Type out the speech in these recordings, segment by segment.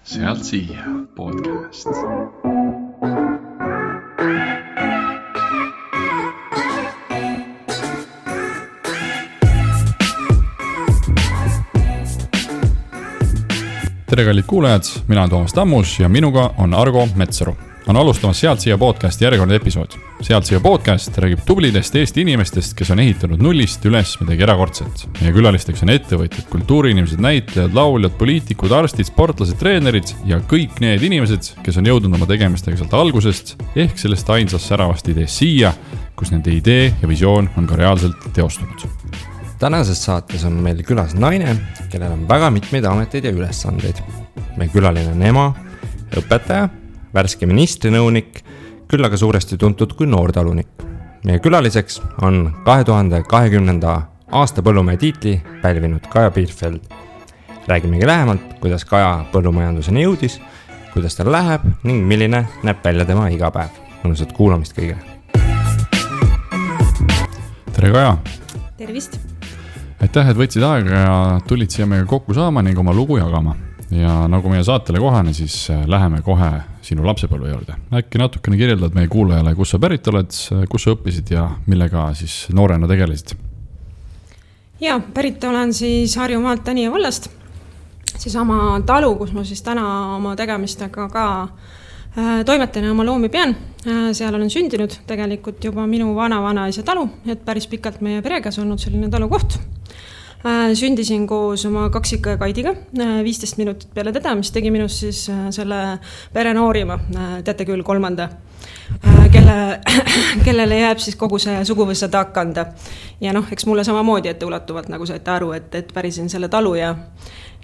Sealt siia podcast. Tere kallid kuulajad, mina olen Toomas Tammus ja minuga on Argo Metsaru. On alustamas Sealt siia podcast järjekordne episood. Sealt siia podcast räägib tublidest Eesti inimestest, kes on ehitanud nullist üles midagi erakordset. Meie külalisteks on ettevõtjad, kultuuriinimesed, näitlejad, lauljad, poliitikud, arstid, sportlased, treenerid ja kõik need inimesed, kes on jõudnud oma tegemistega sealt algusest ehk sellest ainsast säravast ideest siia, kus nende idee ja visioon on ka reaalselt teostunud. Tänases saates on meil külas naine, kellel on väga mitmeid ameteid ja ülesandeid. Meie külaline on ema, õpetaja, värske ministrinõunik, küll aga suuresti tuntud kui noortalunik. Meie külaliseks on 2020. aasta põllumehe tiitli pälvinud Kaja Bielfeld. Räägimegi lähemalt, kuidas Kaja põllumajanduseni jõudis, kuidas tal läheb ning milline näeb välja tema igapäev. Mõnusat kuulamist kõigile. Tere Kaja! Tervist! Aitäh, et võtsid aega ja tulid siia meiega kokku saama ning oma lugu jagama. Ja nagu meie saatele kohane, siis läheme kohe sinu lapsepõlve juurde. Äkki natukene kirjeldad meie kuulajale, kus sa pärit oled, kus sa õppisid ja millega siis noorena tegelesid? Ja, pärit olen siis Harjumaalt Tänija vallast. Seesama talu, kus ma siis täna oma tegemistega ka toimetan ja oma loomi pean. Seal olen sündinud tegelikult juba minu vana-vanaisa talu, et päris pikalt meie peregas olnud selline talukoht. Sündisin koos oma kaksika ja Kaidiga 15 minutit peale teda, mis tegi minust siis selle pere noorima, teate küll, kolmanda, kellele jääb siis kogu see suguvõssa takkanda. Ja eks mulle samamoodi ette ulatuvalt, nagu saite aru, et pärisin selle talu ja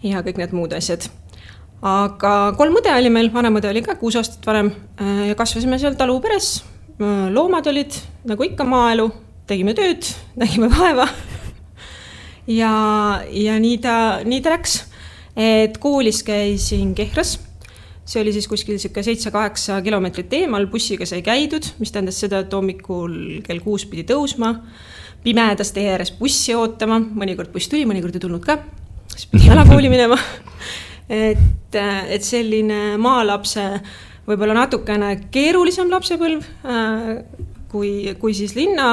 kõik need muud asjad. Aga 3 õde oli meil, vanemõde oli ka 6 aastat vanem ja kasvasime seal talu peres. Loomad olid, nagu ikka maaelu, tegime tööd, nägime vaeva. Ja nii ta läks, et koolis käisin Kehras. See oli siis kuskil 7-8 kilomeetrit eemal, bussiga sai käidud, mis tähendas seda, et hommikul kell 6 pidi tõusma, pimedas tee ääres bussi ootama, mõnikord buss tuli, mõnikord ei tulnud ka, siis pidi jalakooli minema. Et selline maalapse, võib-olla natukene keerulisem lapsepõlv, kui siis linna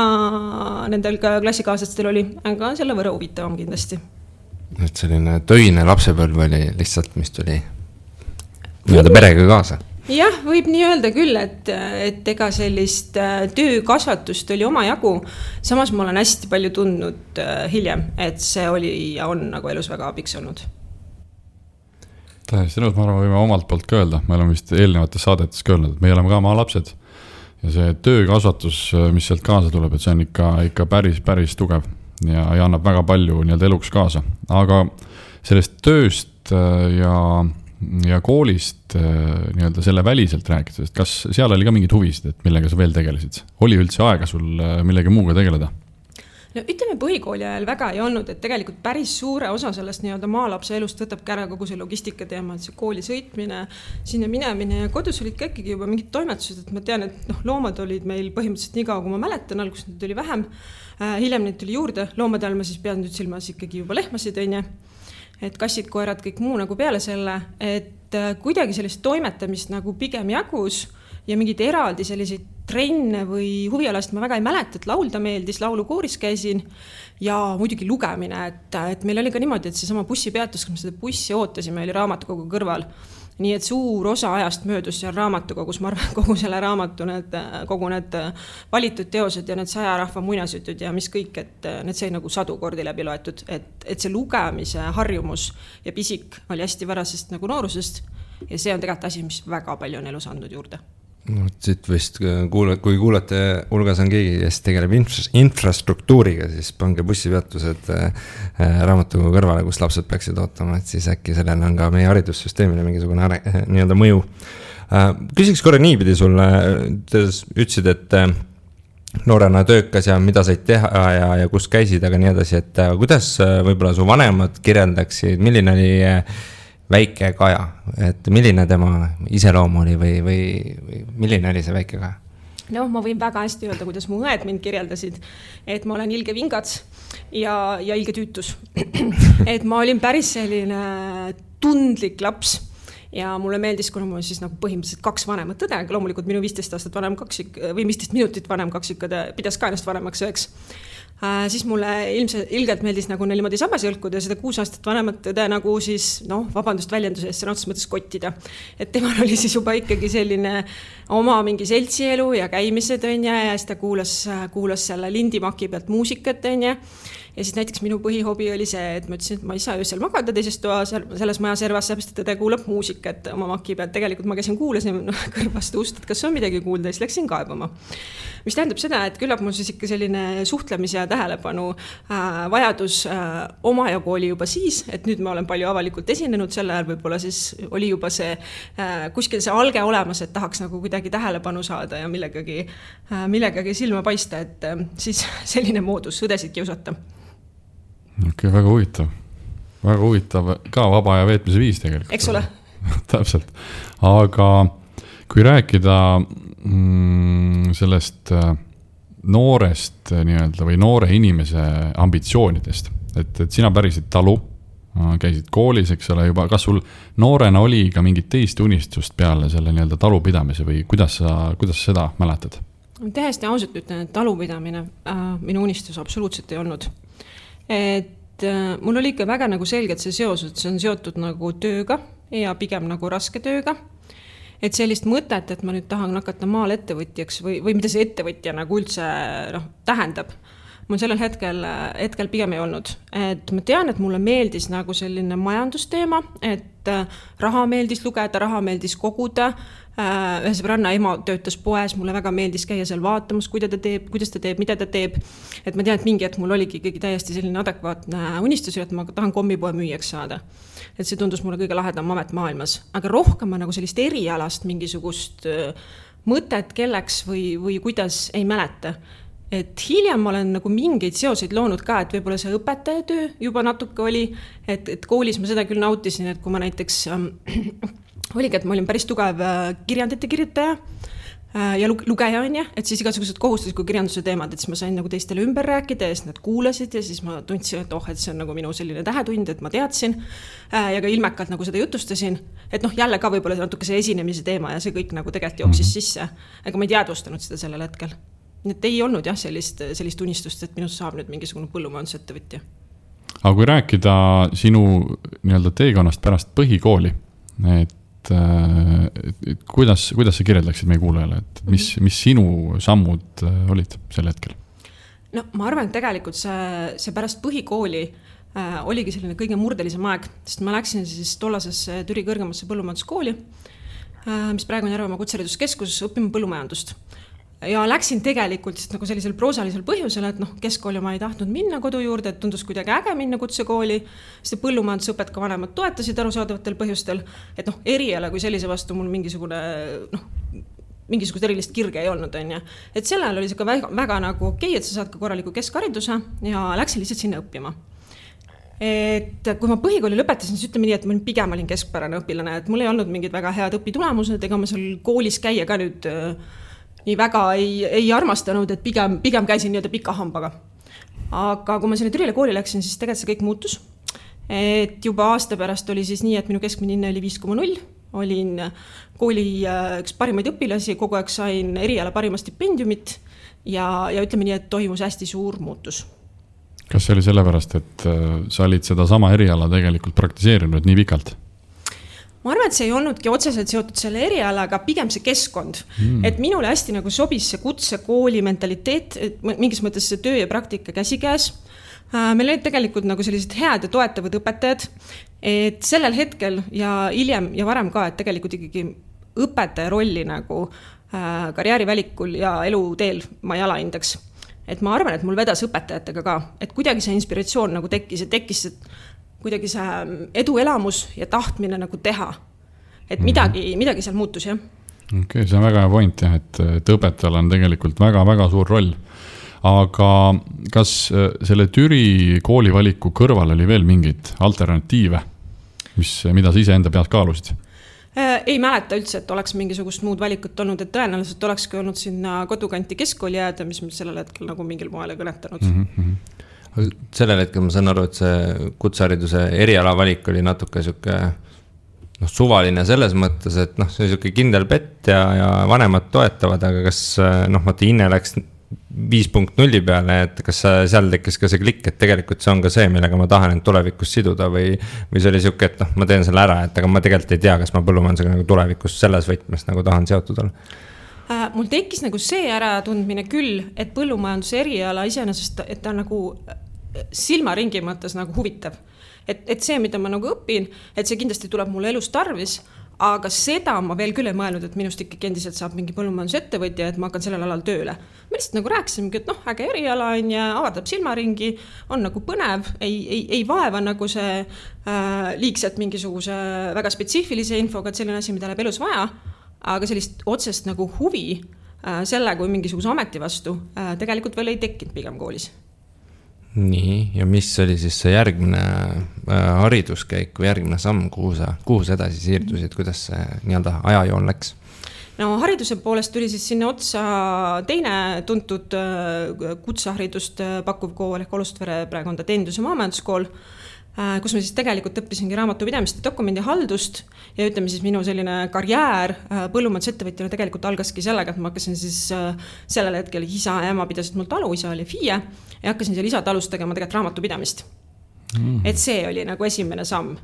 nendel klassikaaslastel oli, aga selle võrra huvitavam kindlasti. Et selline töine lapsepõlv oli lihtsalt, mis tuli nii-öelda perega kaasa. Jah, võib nii öelda küll, et ega sellist töökasvatust oli oma jagu. Samas ma olen hästi palju tundnud hiljem, et see oli ja on nagu elus väga abiks olnud. Tähesti nõud, ma arvan, võime omalt poolt ka öelda. Me oleme vist eelnevates saadetes ka öelnud, et me oleme ka maa lapsed. Ja see töökasvatus, mis sealt kaasa tuleb, et see on ikka päris tugev ja annab väga palju nii-öelda eluks kaasa. Aga sellest tööst ja koolist nii-öelda selle väliselt rääkides, kas seal oli ka mingid huvisid, et millega sa veel tegelesid? Oli üldse aega sul millegi muuga tegeleda? No ütleme, põhikooli ajal väga ei olnud, et tegelikult päris suure osa sellest nii-öelda maalapse elust võtab kära kogu see logistika teema, et see kooli sõitmine, sinna minemine ja kodus olid ka ikkagi juba mingid toimetused, et ma tean, et loomad olid meil põhimõtteliselt nii kaua, kui ma mäletan, alguses neid oli vähem, hiljem neid tuli juurde, loomade all ma siis pean nüüd silmas ikkagi juba lehmasid, et kassid, koerad, kõik muu nagu peale selle, et kuidagi sellist toimetamist nagu pigem jagus ja mingid eraldi selliseid trenne või huvialast ma väga ei mäleta, et laulda meeldis, laulukooris käisin ja muidugi lugemine, et meil oli ka niimoodi, et seesama bussipeatus, kui me seda bussi ootasime, oli raamatukogu kõrval. Nii et suur osa ajast möödus seal raamatukogus, ma arvan, kogu selle raamatu, kogu need valitud teosed ja need 100 rahva muinasjutud ja mis kõik, et need sai nagu 100 kordi läbi loetud, et see lugemise harjumus ja pisik oli hästi varasest nagu noorusest ja see on tegelikult asi, mis väga palju on elus andnud juurde. No, siit vist, kui kuulate, hulgas on keegi, kes tegeleb infrastruktuuriga, siis pange bussipeatused raamatukogu kõrvale, kus lapsed peaksid ootama, et siis äkki sellel on ka meie haridussüsteemile mingisugune nii-öelda mõju. Küsiks korra niipidi sulle, ütlesid, et noorena töökas ja mida said teha ja kus käisid, aga nii edasi, et kuidas võib-olla su vanemad kirjeldaksid, milline oli väike Kaja, et milline tema iseloom oli või milline oli see väike Kaja? No, ma võin väga hästi öelda, kuidas mu õed mind kirjeldasid, et ma olen ilge vingats ja ilge tüütus. Et ma olin päris selline tundlik laps ja mulle meeldis, kuna mul siis nagu põhimõtteliselt 2 vanemat õde, loomulikult minu 15 aastat vanem kaksik või 15 minutit vanem kaksikõde pidas ka ennast vanemaks üheks. Siis mulle ilgelt meeldis nagu neil niimoodi sabas jõlkuda ja seda 6 aastat vanemat õde nagu siis, vabandust väljenduse eest, sõna otseses mõttes kottida. Et temal oli siis juba ikkagi selline oma mingi seltsielu ja käimised ja siis ta kuulas selle lindimaki pealt muusikat ja siis näiteks minu põhihobi oli see, et ma ütlesin, et ma ei saa öösel magada teises toas selles maja servas, seepärast et ta kuulab muusikat oma maki pealt. Tegelikult ma käisin kuulasin kõrvast ust, et kas on midagi kuulda ja siis läksin kaebama. Mis tähendab seda, et küllap mul siis ikka selline suhtlemise ja tähelepanu vajadus omajagu oli juba siis, et nüüd ma olen palju avalikult esinenud, selle ajal võib-olla siis oli juba see kuskil see alge olemas, et tahaks nagu kuidagi tähelepanu saada ja millegagi silma paista, et siis selline moodus õdesid kiusata. Okei, väga huvitav ka vaba aja veetmise viis tegelikult. Eks ole? Täpselt. Aga kui rääkida sellest noorest nii-öelda või noore inimese ambitsioonidest, et sina pärisid talu, käisid koolis, eks ole juba, kas sul noorena oli ka mingit teist unistust peale selle nii-öelda talupidamise või kuidas seda mäletad? Tähesti ausalt ütlen, et talupidamine minu unistus absoluutselt ei olnud. Et mul oli ikka väga nagu selgelt see seos, et see on seotud nagu tööga ja pigem nagu raske tööga. Et sellist mõtet, et ma nüüd tahan hakata maal ettevõtjaks või mida see ettevõtja nagu üldse tähendab, mul sellel hetkel pigem ei olnud. Et ma tean, et mulle meeldis nagu selline majandusteema, et raha meeldis lugeda, raha meeldis koguda. Ühe sõbranna ema töötas poes, mulle väga meeldis käia seal vaatamas, kuidas ta teeb, mida ta teeb. Et ma tean, et mingi hetk mul oligi ikkagi täiesti selline adekvaatne unistus, et ma tahan kommipoe müüjaks saada. Et see tundus mulle kõige lahedam amet maailmas. Aga rohkem ma nagu sellist erialast mingisugust mõtet kelleks või kuidas ei mäleta. Et hiljem ma olen nagu mingeid seoseid loonud ka, et võib-olla see õpetajatöö juba natuke oli, et koolis ma seda küll nautisin, et kui ma näiteks oligi, et ma olin päris tugev kirjandite kirjutaja ja lugeja on ja, et siis igasugused kohustusliku kirjanduse teemad, et siis ma sain nagu teistele ümber rääkida ja siis nad kuulasid ja siis ma tundsin, et et see on nagu minu selline tähetund, et ma teadsin ja ka ilmekalt nagu seda jutustasin, et jälle ka võib-olla natuke see esinemise teema ja see kõik nagu tegelikult jooksis sisse, aga ma ei teadvustanud seda sellel hetkel. Et ei olnud jah sellist unistust, et minust saab nüüd mingisugune põllumajandusettevõtja. Aga kui rääkida sinu nii-öelda teekonnast pärast põhikooli, et kuidas sa kirjeldaksid meie kuulajale, et mis sinu sammud olid sel hetkel? No ma arvan, et tegelikult see pärast põhikooli oligi selline kõige murdelisem aeg, sest ma läksin siis tollasesse Türi kõrgemasse põllumajanduskooli, mis praegu on Järvemaa kutsehariduskeskus õppima põllumajandust. Ja läksin tegelikult nagu sellisel proosalisel põhjusel, et keskkooli ma ei tahtnud minna kodu juurde, et tundus kuidagi äge minna kutsekooli, sest põllumajandusõpet ka vanemad toetasid arusaadavatel põhjustel, et eriala kui sellise vastu mul mingisugust erilist kirge ei olnud. Et sel ajal oli see ka väga nagu okei, et sa saad ka korraliku keskhariduse ja läksin lihtsalt sinna õppima. Et kui ma põhikooli lõpetasin, siis ütleme nii, et ma pigem olin keskpärane õpilane, et mul ei olnud mingid väga head õpitulemused, ega ma seal koolis käia ka nüüd nii väga ei armastanud, et pigem käisin nii-öelda pika hambaga. Aga kui ma selle Türile kooli läksin, siis tegelikult see kõik muutus. Et juba aasta pärast oli siis nii, et minu keskmine hinne oli 5,0. Olin kooli üks parimaid õpilasi, kogu aeg sain eriala parima stipendiumit ja ütleme nii, et toimus hästi suur muutus. Kas see oli sellepärast, et sa olid seda sama eriala tegelikult praktiseerinud nii pikalt? Ma arvan, et see ei olnudki otseselt seotud selle erialaga, pigem see keskkond. Et minule hästi nagu sobis see kutsekooli mentaliteet, et mingis mõttes see töö ja praktika käsikäes. Meil olid tegelikult nagu sellised head ja toetavad õpetajad, et sellel hetkel ja hiljem ja varem ka, et tegelikult ikkagi õpetaja rolli nagu karjäärivälikul ja eluteel ma ei alahindaks. Et ma arvan, et mul vedas õpetajatega ka, et kuidagi see inspiratsioon nagu tekkis kuidagi see eduelamus ja tahtmine nagu teha. Et midagi seal muutus, jah. Okei, see on väga hea point, jah, et õpetajal on tegelikult väga-väga suur roll. Aga kas selle Türi koolivaliku kõrval oli veel mingeid alternatiive, mida sa ise enda peas kaalusid? Ei mäleta üldse, et oleks mingisugust muud valikut olnud, et tõenäoliselt olekski olnud sinna kodukanti keskkooli jääda, mis sellel hetkel nagu mingil moel ei kõnetanud. Sellel hetkel ma saan aru, et see kutsehariduse eriala valik oli natuke suvaline selles mõttes, et see on siuke kindel pett ja vanemad toetavad, aga kas vaata Inne läks 5.0 peale, et kas seal tekkis ka see klikk, et tegelikult see on ka see, millega ma tahan end tulevikus siduda või see oli siuke, et ma teen selle ära, et aga ma tegelikult ei tea, kas ma põllumajandusega nagu tulevikus selles võtmes nagu tahan seotud olla. Mul tekkis nagu see äratundmine küll, et põllumajanduse eriala iseenesest, et ta nagu silmaringi mõttes nagu huvitav. Et see, mida ma nagu õpin, et see kindlasti tuleb mulle elus tarvis, aga seda ma veel küll ei mõelnud, et minust ikkagi endiselt saab mingi põllumajandusettevõtja, et ma hakkan sellel alal tööle. Ma lihtsalt nagu rääkisimegi, et äge eriala on ja avardab silmaringi, on nagu põnev, ei vaeva nagu see liigselt mingisuguse väga spetsiifilise infoga, et selline asi, mida läheb elus vaja, aga sellist otsest nagu huvi selle kui mingisuguse ameti vastu tegelikult veel ei tekkinud pigem koolis. Nii, ja mis oli siis see järgmine hariduskäik või järgmine samm, kuhu sa edasi siirdusid, kuidas see nii-öelda ajajoon läks? No hariduse poolest tuli siis sinna otsa teine tuntud kutseharidust pakkuv kool ehk Olustvere praegu on ta teenindus- ja maamajanduskool, kus ma siis tegelikult õppisingi raamatupidamist ja dokumendihaldust ja ütleme siis minu selline karjäär põllumajandusettevõtjana tegelikult algaski sellega, et ma hakkasin siis sellel hetkel isa ja ema pidasid mul talu, isa oli FIE ja hakkasin seal isa talust tegema tegelikult raamatupidamist. Et see oli nagu esimene samm.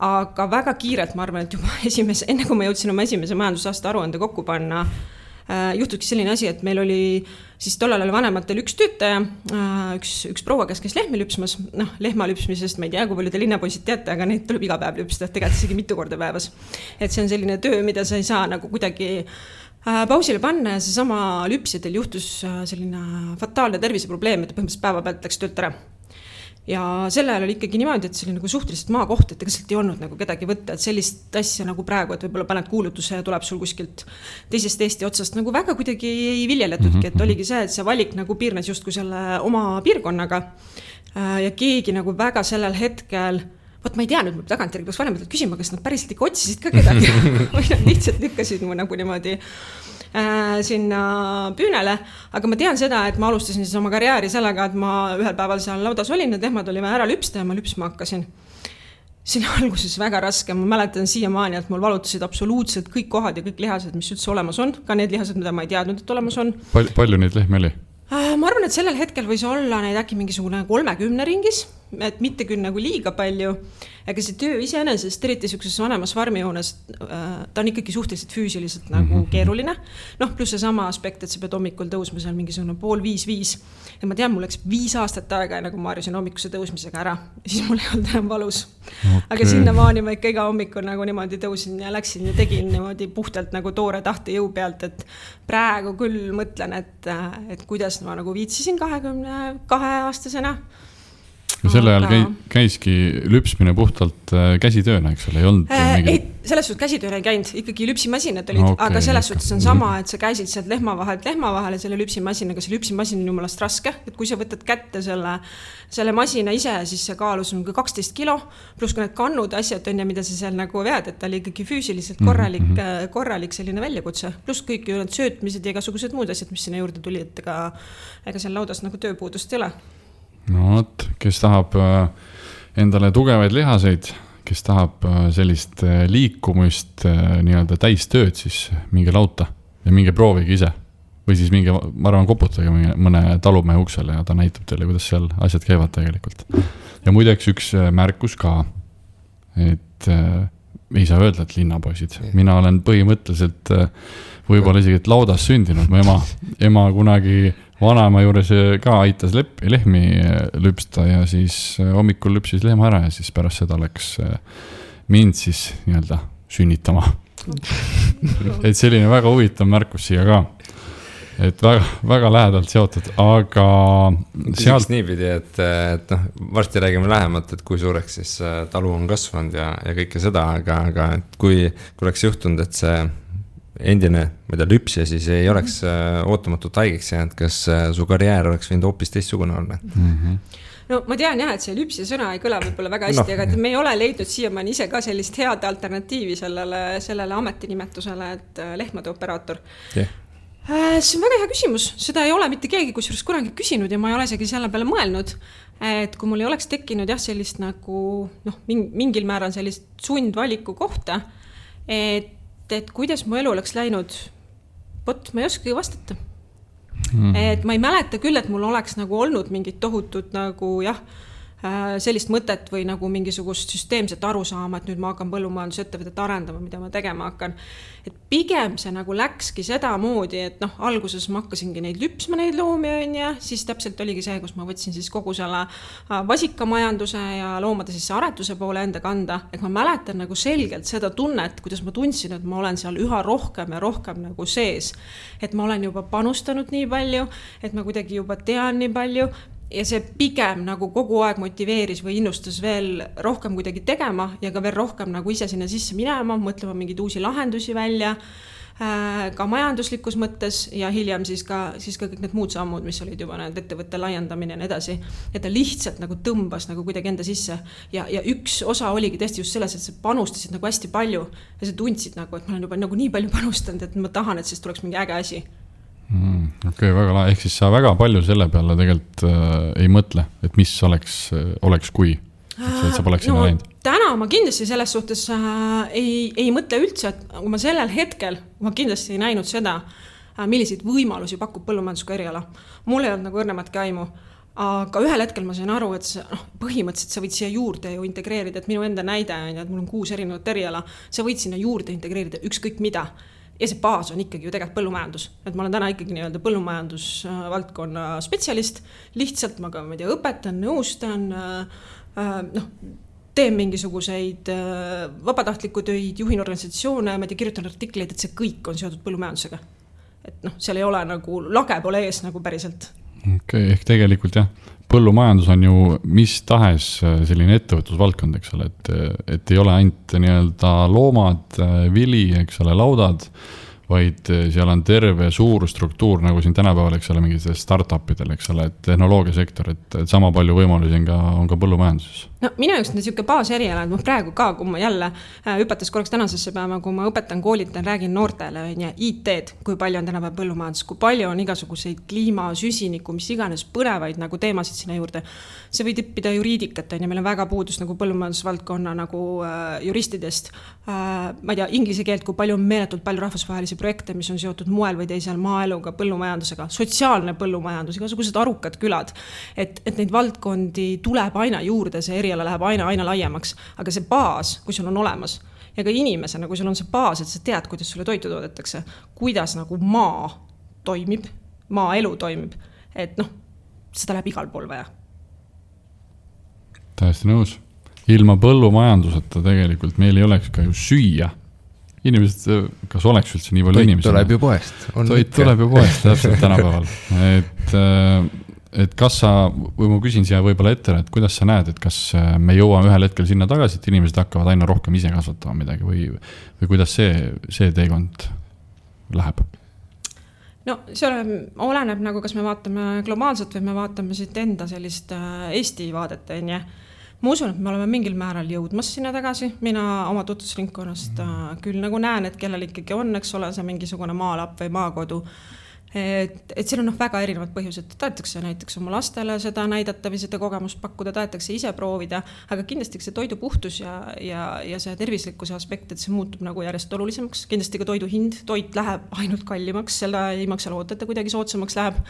Aga väga kiirelt ma arvan, et juba enne kui ma jõudsin oma esimese majandusaasta aruande kokku panna, juhtuski selline asi, et meil oli siis tollal oli vanematel üks töötaja, üks proua, kes lehmi lüpsmas, lehma lüpsmisest, ma ei tea, kui palju te linnapoisid teate, aga neid tuleb iga päev lüpsta, tegelikult isegi mitu korda päevas. Et see on selline töö, mida sa ei saa nagu kuidagi pausile panna ja see sama lüpsidel juhtus selline fataalne terviseprobleem, et põhimõtteliselt päeva pealt läks töölt ära. Ja selle ajal oli ikkagi niimoodi, et see oli nagu suhteliselt maakoht, et ega sealt ei olnud nagu kedagi võtta, et sellist asja nagu praegu, et võib-olla paned kuulutuse ja tuleb sul kuskilt teisest Eesti otsast nagu väga kuidagi ei viljeletudki, et oligi see, et see valik nagu piirnes justkui selle oma piirkonnaga ja keegi nagu väga sellel hetkel, ma ei tea nüüd, ma tagantjärgi peaks vanematelt küsima, kas nad päriselt ikka otsisid ka kedagi või nad lihtsalt lükkasid mu nagu niimoodi sinna püünele, aga ma tean seda, et ma alustasin siis oma karjääri sellega, et ma ühel päeval seal laudas olin, need lehmad oli vaja ära lüpsta ja ma lüpsma hakkasin. Siin alguses väga raske, ma mäletan siiamaani, et mul valutasid absoluutselt kõik kohad ja kõik lihased, mis üldse olemas on, ka need lihased, mida ma ei teadnud, et olemas on. Palju neid lehmi oli? Ma arvan, et sellel hetkel võis olla neid äkki mingisugune 30 ringis, et mitte küll nagu liiga palju, aga see töö iseenesest, eriti sellises vanemas farmijoones, ta on ikkagi suhteliselt füüsiliselt nagu keeruline. Pluss see sama aspekt, et sa pead hommikul tõusma seal mingisugune 4:30. Ja ma tean, mul läks 5 aastat aega, nagu ma harjusin hommikuse tõusmisega ära, siis mul ei olnud enam valus. Okay. Aga sinnamaani ma ikka iga hommikul nagu niimoodi tõusin ja läksin ja tegin niimoodi puhtalt nagu toore tahte jõu pealt, et praegu küll mõtlen, et kuidas ma nagu viitsisin 22-aastasena. Ja selle ajal käiski lüpsmine puhtalt käsitööna, eks ole, ei olnud ei, selles suhtes käsitööna ei käinud, ikkagi lüpsimasinad olid, aga selles suhtes on sama, et sa käisid sealt lehma vahele selle lüpsimasinaga, see lüpsimasin on jumalast raske, et kui sa võtad kätte selle masina ise, siis see kaalus on 12 kilo, pluss ka need kannud asjad on ja mida sa seal nagu vead, et ta oli ikkagi füüsiliselt korralik selline väljakutse, pluss kõik ju need söötmised ja igasugused muud asjad, mis sinna juurde tuli, et ega seal laudas nagu tööpuudust ei ole. No võt, kes tahab endale tugevaid lihaseid, kes tahab sellist liikumist nii-öelda täistööd, siis minge lauta ja minge proovige ise. Või siis minge, ma arvan, koputage mõne talumehe uksele ja ta näitab teile, kuidas seal asjad käivad tegelikult. Ja muideks üks märkus ka, et ei saa öelda, et linnapoisid. Mina olen põhimõtteliselt võib-olla isegi et laudas sündinud. Mu ema kunagi vanaema juures ka aitas lehmi lüpsta ja siis hommikul lüpsis lehma ära ja siis pärast seda läks mind siis nii-öelda sünnitama. Et selline väga huvitav märkus siia ka. Et väga lähedalt seotud, aga sealt niipidi, et varsti räägime lähemalt, et kui suureks siis talu on kasvanud ja kõike seda, aga kui oleks juhtunud, et see endine, mida lüpsja siis ei oleks ootamatult haigeks jäänud, kas su karjäär oleks võinud hoopis teistsugune olla? No ma tean jah, et see lüpsi sõna ei kõla võib-olla väga hästi, aga me ei ole leidnud siiamaani ise ka sellist head alternatiivi sellele ametinimetusele, et lehmade operaator. See on väga hea küsimus, seda ei ole mitte keegi kusjuures kunagi küsinud ja ma ei ole isegi selle peale mõelnud, et kui mul ei oleks tekkinud sellist nagu mingil määral sellist sundvaliku kohta, et kuidas mu elu oleks läinud, ma ei oskagi vastata. Et ma ei mäleta küll, et mul oleks nagu olnud mingit tohutut nagu sellist mõtet või nagu mingisugust süsteemset arusaama, et nüüd ma hakkan põllumajandusettevõtet arendama, mida ma tegema hakkan. Et pigem see nagu läkski seda moodi, et alguses ma hakkasingi neid lüpsma neid loomi ja siis täpselt oligi see, kus ma võtsin siis kogu selle vasikamajanduse ja loomade siis aretuse poole enda kanda. Et ma mäletan nagu selgelt seda tunnet, kuidas ma tundsin, et ma olen seal üha rohkem ja rohkem nagu sees. Et ma olen juba panustanud nii palju, et ma kuidagi juba tean nii palju. Ja see pigem nagu kogu aeg motiveeris või innustas veel rohkem kuidagi tegema ja ka veel rohkem nagu ise sinna sisse minema, mõtlema mingeid uusi lahendusi välja, ka majanduslikus mõttes ja hiljem siis ka kõik need muud sammud, mis olid juba need ettevõtte laiendamine ja nii edasi. Et ta lihtsalt nagu tõmbas nagu kuidagi enda sisse ja üks osa oligi tõesti just selles, et sa panustasid nagu hästi palju ja sa tundsid nagu, et ma olen juba nagu nii palju panustanud, et ma tahan, et siis tuleks mingi äge asi. Okei, väga lahe. Ehk siis sa väga palju selle peale tegelikult ei mõtle, et mis oleks kui, et sa poleks sinna läinud. Täna ma kindlasti selles suhtes ei mõtle üldse, et kui ma sellel hetkel ma kindlasti ei näinud seda, milliseid võimalusi pakub põllumajandusega eriala. Mul ei olnud nagu õrnematki aimu, aga ühel hetkel ma sain aru, et põhimõtteliselt sa võid siia juurde ju integreerida, et minu enda näide on, et mul on 6 erinevat eriala, sa võid sinna juurde integreerida ükskõik mida. Ja see baas on ikkagi ju tegelikult põllumajandus. Et ma olen täna ikkagi nii-öelda põllumajandusvaldkonna spetsialist. Lihtsalt ma ka õpetan, nõustan, teen mingisuguseid vabatahtliku töid, juhin organisatsioone, kirjutan artikleid, et see kõik on seotud põllumajandusega. Et seal ei ole nagu, lage pole ees nagu päriselt. Okei, ehk tegelikult põllumajandus on ju mis tahes selline ettevõtlusvaldkond, eks ole, et ei ole ainult nii-öelda loomad, vili, eks ole, laudad, vaid seal on terve suur struktuur, nagu siin tänapäeval, eks ole, mingid startupidel, eks ole, et tehnoloogiasektor, et sama palju võimalusi on ka põllumajanduses. No minu jaoks on niisugune baaseriala, et ma praegu ka, kui ma jälle hüpates korraks tänasesse päeva, kui ma õpetan, koolitan, räägin noortele IT-d, kui palju on tänapäev põllumajandus, kui palju on igasuguseid kliima, süsiniku, mis iganes põnevaid nagu teemasid sinna juurde. See võib tippida juriidikat, ja meil on väga puudus nagu põllumajandusvaldkonna nagu juristidest. Ma ei tea, inglise keelt, kui palju on meeletult palju rahvusvahelisi projekte, mis on seotud moel või teisel maaeluga, põllumajandusega, sotsiaalne põllumajandus, igasugused arukad külad, et neid valdkondi tuleb aina juurde, see eriala läheb aina laiemaks, aga see baas, kui sul on olemas ja ka inimesena, kui sul on see baas, et sa tead, kuidas sulle toitu toodetakse, kuidas nagu maa toimib, maaelu toimib, et seda läheb igal pool vaja. Täiesti nõus. Ilma põllumajanduseta tegelikult meil ei oleks ka ju süüa. Inimesed, kas oleks üldse nii palju inimesi? Toit tuleb ju poest. Toit tuleb ju poest, täpselt tänapäeval. Et kas sa, või ma küsin siia võib-olla ette, et kuidas sa näed, et kas me jõuame ühel hetkel sinna tagasi, et inimesed hakkavad aina rohkem ise kasvatama midagi või kuidas see teekond läheb? No see oleneb nagu, kas me vaatame globaalselt või me vaatame siit enda sellist Eesti vaadet, onje. Ma usun, et me oleme mingil määral jõudmas sinna tagasi. Mina oma tutvusringkonnast küll nagu näen, et kellel ikkagi on, eks ole, see mingisugune maalapp või maakodu. Et seal on väga erinevad põhjused. Tahetakse näiteks oma lastele seda näidata või seda kogemust pakkuda, tahetakse ise proovida, aga kindlasti see toidu puhtus ja see tervislikkuse aspekt, et see muutub nagu järjest olulisemaks. Kindlasti ka toidu hind, toit läheb ainult kallimaks, selle ei maksa loota, et kuidagi soodsamaks läheb.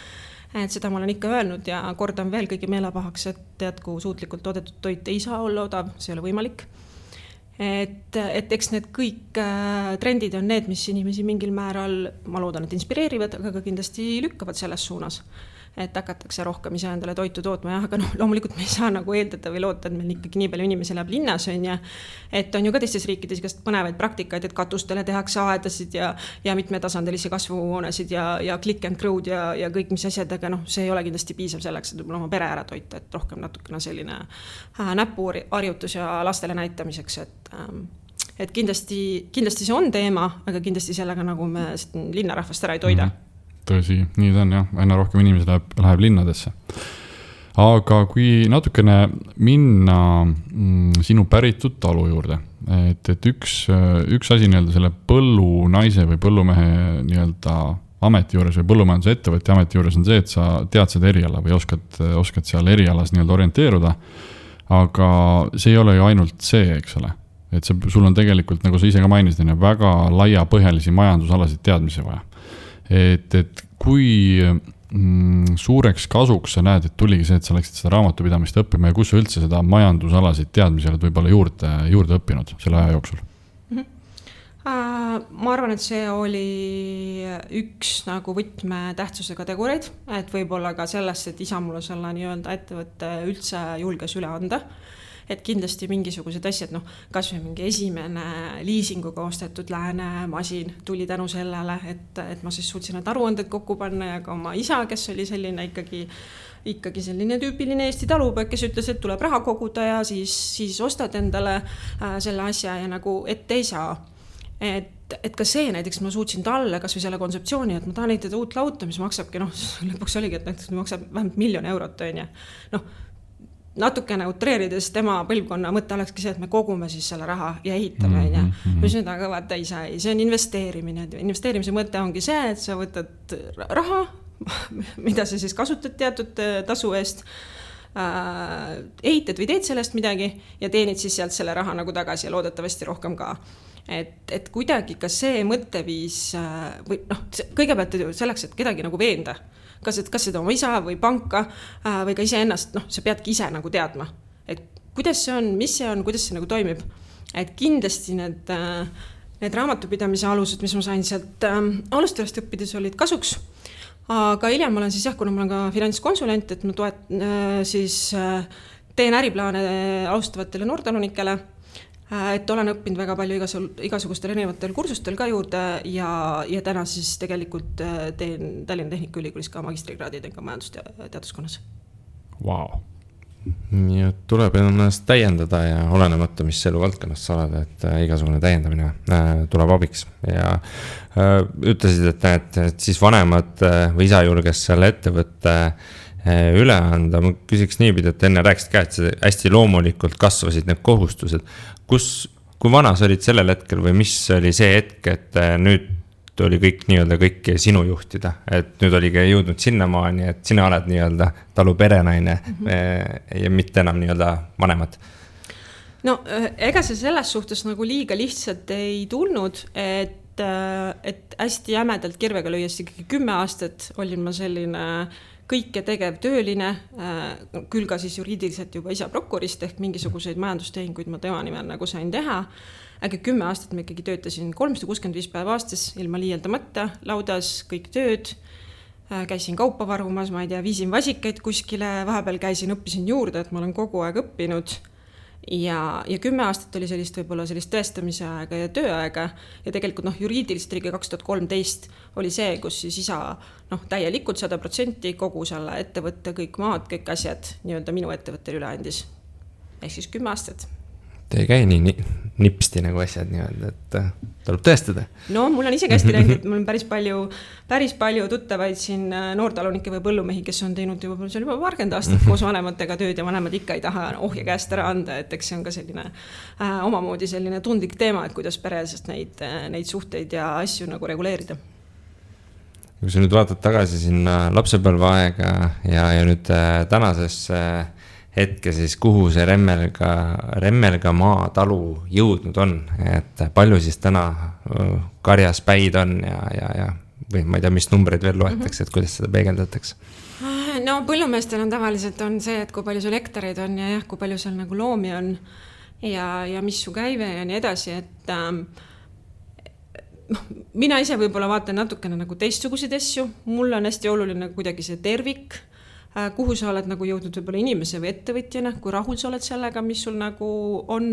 Et seda ma olen ikka öelnud ja kordan veel kõigi meelepahaks, et jätku suutlikult toodetud toit ei saa olla odav, see ei ole võimalik. Et eks need kõik trendid on need, mis inimesi mingil määral, ma loodan, et inspireerivad, aga ka kindlasti lükkavad selles suunas. Et hakatakse rohkem ise endale toitu tootma, aga loomulikult me ei saa nagu eeldada või loota, et meil ikkagi nii palju inimesi läheb linnas on ja et on ju ka teistes riikides igast põnevaid praktikaid, et katustele tehakse aedasid ja mitmetasandilisi kasvuhoonesid ja click and crowd ja kõik mis asjad, aga see ei ole kindlasti piisav selleks, et oma pere ära toita, et rohkem natukene selline näpuharjutus ja lastele näitamiseks, et kindlasti see on teema, aga kindlasti sellega nagu me linnarahvast ära ei toida. Tõsi, nii ta on jah, aina rohkem inimesi läheb linnadesse. Aga kui natukene minna sinu päritud talu juurde, et üks asi nii-öelda selle põllunaise või põllumehe nii-öelda ameti juures või põllumajanduse ettevõtja ameti juures on see, et sa tead seda eriala või oskad seal erialas nii-öelda orienteeruda. Aga see ei ole ju ainult see, eks ole. Et sul on tegelikult, nagu sa ise ka mainisid, väga laiapõhjalisi majandusalasid teadmisi vaja. Et kui suureks kasuks sa näed, et tuligi see, et sa läksid seda raamatupidamist õppima ja kus sa üldse seda majandusalasid teadmisi oled võib-olla juurde õppinud selle aja jooksul? Ma arvan, et see oli üks nagu võtmetähtsusega tegureid, et võib-olla ka sellest, et isa mulle selle nii-öelda ettevõtte üldse julges üle anda. Et kindlasti mingisugused asjad, kas või mingi esimene liisinguga ostetud lääne masin tuli tänu sellele, et ma siis suutsin need aruanded kokku panna ja ka oma isa, kes oli selline ikkagi selline tüüpiline Eesti talupoeg, kes ütles, et tuleb raha koguda ja siis ostad endale selle asja ja nagu ette ei saa. Et ka see näiteks ma suutsin talle kas või selle kontseptsiooni, et ma tahan ehitada uut lauta, mis maksabki, lõpuks oligi, et näiteks maksab vähemalt 1 000 000 eurot, on ju. Natukene utreerides tema põlvkonna mõte olekski see, et me kogume siis selle raha ja ehitame, on ju. Mis nüüd aga vaata ei saa, see on investeerimine. Investeerimise mõte ongi see, et sa võtad raha, mida sa siis kasutad teatud tasu eest, ehitad või teed sellest midagi ja teenid siis sealt selle raha nagu tagasi ja loodetavasti rohkem ka. Et kuidagi ka see mõtteviis või kõigepealt selleks, et kedagi nagu veenda, kas seda oma isa või panka või ka ise ennast, sa peadki ise nagu teadma, et kuidas see on, mis see on, kuidas see nagu toimib. Et kindlasti need raamatupidamise alused, mis ma sain sealt alustajast õppides olid kasuks, aga hiljem ma olen siis kuna ma olen ka finantskonsulent, et ma teen äriplaane alustavatele noortalunikele, et olen õppinud väga palju igasugustel erinevatel kursustel ka juurde ja täna siis tegelikult teen Tallinna Tehnikaülikoolis ka magistrikraadid ka majandusteaduskonnas. Wow. Ja tuleb ennast täiendada ja olenemata, mis eluvaldkonnas sa oled, et igasugune täiendamine tuleb abiks. Ja ütlesid, et siis vanemad või isa julges selle ettevõtte üle anda. Ma küsiks niipidi, et enne rääkisid ka, et hästi loomulikult kasvasid need kohustused. Kui vana sa olid sellel hetkel või mis oli see hetk, et nüüd oli kõik nii-öelda kõik sinu juhtida, et nüüd oligi jõudnud sinnamaani, et sina oled nii-öelda talu perenaine ja mitte enam nii-öelda vanemad? No ega see selles suhtes nagu liiga lihtsalt ei tulnud, et hästi jämedalt kirvega lüües 10 aastat olin ma selline kõike tegev tööline, küll ka siis juriidiliselt juba isa prokurist ehk mingisuguseid majandustehinguid ma tema nimel nagu sain teha. Aga 10 aastat me ikkagi töötasin 365 päeva aastas ilma liialdamata, laudas kõik tööd, käisin kaupa varumas, ma ei tea, viisin vasikaid kuskile, vahepeal õppisin juurde, et ma olen kogu aeg õppinud. Ja 10 aastat oli võib-olla sellist tõestamise aega ja tööaega ja tegelikult juriidiliselt oli 2013 oli see, kus siis isa täielikult 100% kogu selle ettevõtte, kõik maad, kõik asjad nii-öelda minu ettevõttel üle andis. Ehk siis 10 aastat. Te ei käi nii nipsti nagu asjad nii-öelda, et tuleb tõestada. No mul on isegi hästi läinud, et mul on päris palju tuttavaid siin noortalunikke või põllumehi, kes on teinud juba 20 aastat koos vanematega tööd ja vanemad ikka ei taha ohje käest ära anda, et eks see on ka selline omamoodi selline tundlik teema, et kuidas peresest neid suhteid ja asju nagu reguleerida. Kui sa nüüd vaatad tagasi sinna lapsepõlveaega ja nüüd tänasesse hetke siis, kuhu see Remmelga maa talu jõudnud on, et palju siis täna karjas päid on ja või ma ei tea, mis numbreid veel loetakse, et kuidas seda peegeldatakse? No põllumeestel on tavaliselt on see, et kui palju sul hektareid on ja kui palju seal nagu loomi on ja mis su käive ja nii edasi, et mina ise võib-olla vaatan natukene nagu teistsuguseid asju, mul on hästi oluline kuidagi see tervik, kuhu sa oled nagu jõudnud võib-olla inimese või ettevõtjana, kui rahul sa oled sellega, mis sul nagu on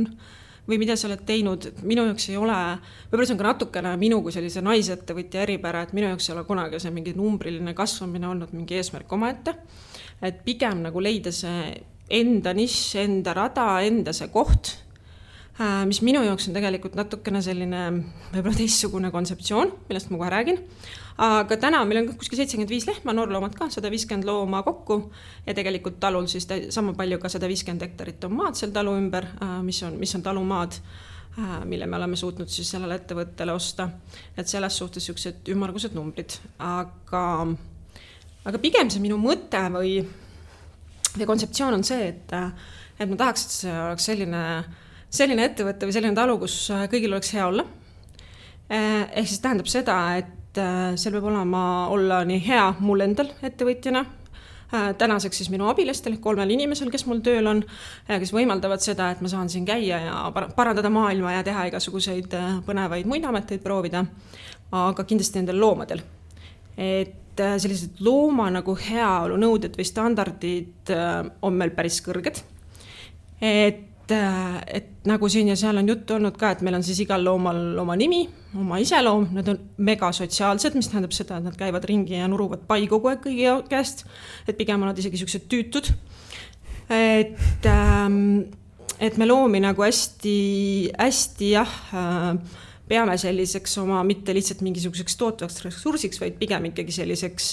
või mida sa oled teinud. Minu jaoks ei ole, võib-olla see on ka natukene minu kui sellise naisettevõtja eripära, et minu jaoks ei ole kunagi see mingi numbriline kasvamine olnud mingi eesmärk omaette, et pigem nagu leida see enda nišš, enda rada, enda see koht, mis minu jaoks on tegelikult natukene selline võib-olla teistsugune kontseptsioon, millest ma kohe räägin. Aga täna meil on kuskil 75 lehma, noorloomad ka, 150 looma kokku ja tegelikult talul siis sama palju ka 150 hektarit on maad seal talu ümber, mis on talumaad. mille me oleme suutnud siis sellele ettevõttele osta. Et selles suhtes siuksed ümmargused numbrid. Aga pigem see minu mõte või kontseptsioon on see, et ma tahaks, et see oleks selline ettevõtte või selline talu, kus kõigil oleks hea olla. Ehk siis tähendab seda, et seal peab olla nii hea mul endal ettevõtjana, tänaseks siis minu abilistel, 3 inimesel, kes mul tööl on, kes võimaldavad seda, et ma saan siin käia ja parandada maailma ja teha igasuguseid põnevaid muid ameteid proovida, aga kindlasti nendel loomadel. Et sellised looma nagu heaolu nõuded või standardid on meil päris kõrged. Et nagu siin ja seal on juttu olnud ka, et meil on siis igal loomal oma nimi, oma iseloom, nad on mega sotsiaalsed, mis tähendab seda, et nad käivad ringi ja nuruvad pai kogu aeg kõigi käest, et pigem on nad isegi siuksed tüütud. Et me loomi nagu hästi peame selliseks oma mitte lihtsalt mingisuguseks tootvaks ressursiks, vaid pigem ikkagi selliseks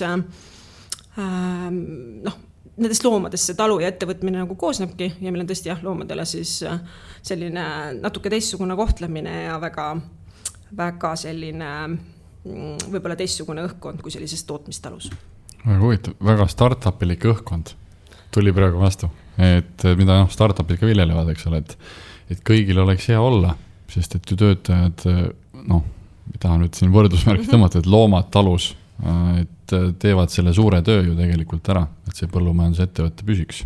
nendest loomadest see talu ja ettevõtmine nagu koosnebki ja meil on tõesti loomadele siis selline natuke teistsugune kohtlemine ja väga selline võib-olla teistsugune õhkkond kui sellises tootmistalus. Väga huvitav, väga startupilik õhkkond tuli praegu vastu, et mida startupid ka viljelevad, eks ole, et kõigil oleks hea olla, sest et ju töötajad, tahan nüüd siin võrdusmärki tõmmata, et loomad talus, et teevad selle suure töö ju tegelikult ära, et see põllumajandusettevõtte püsiks.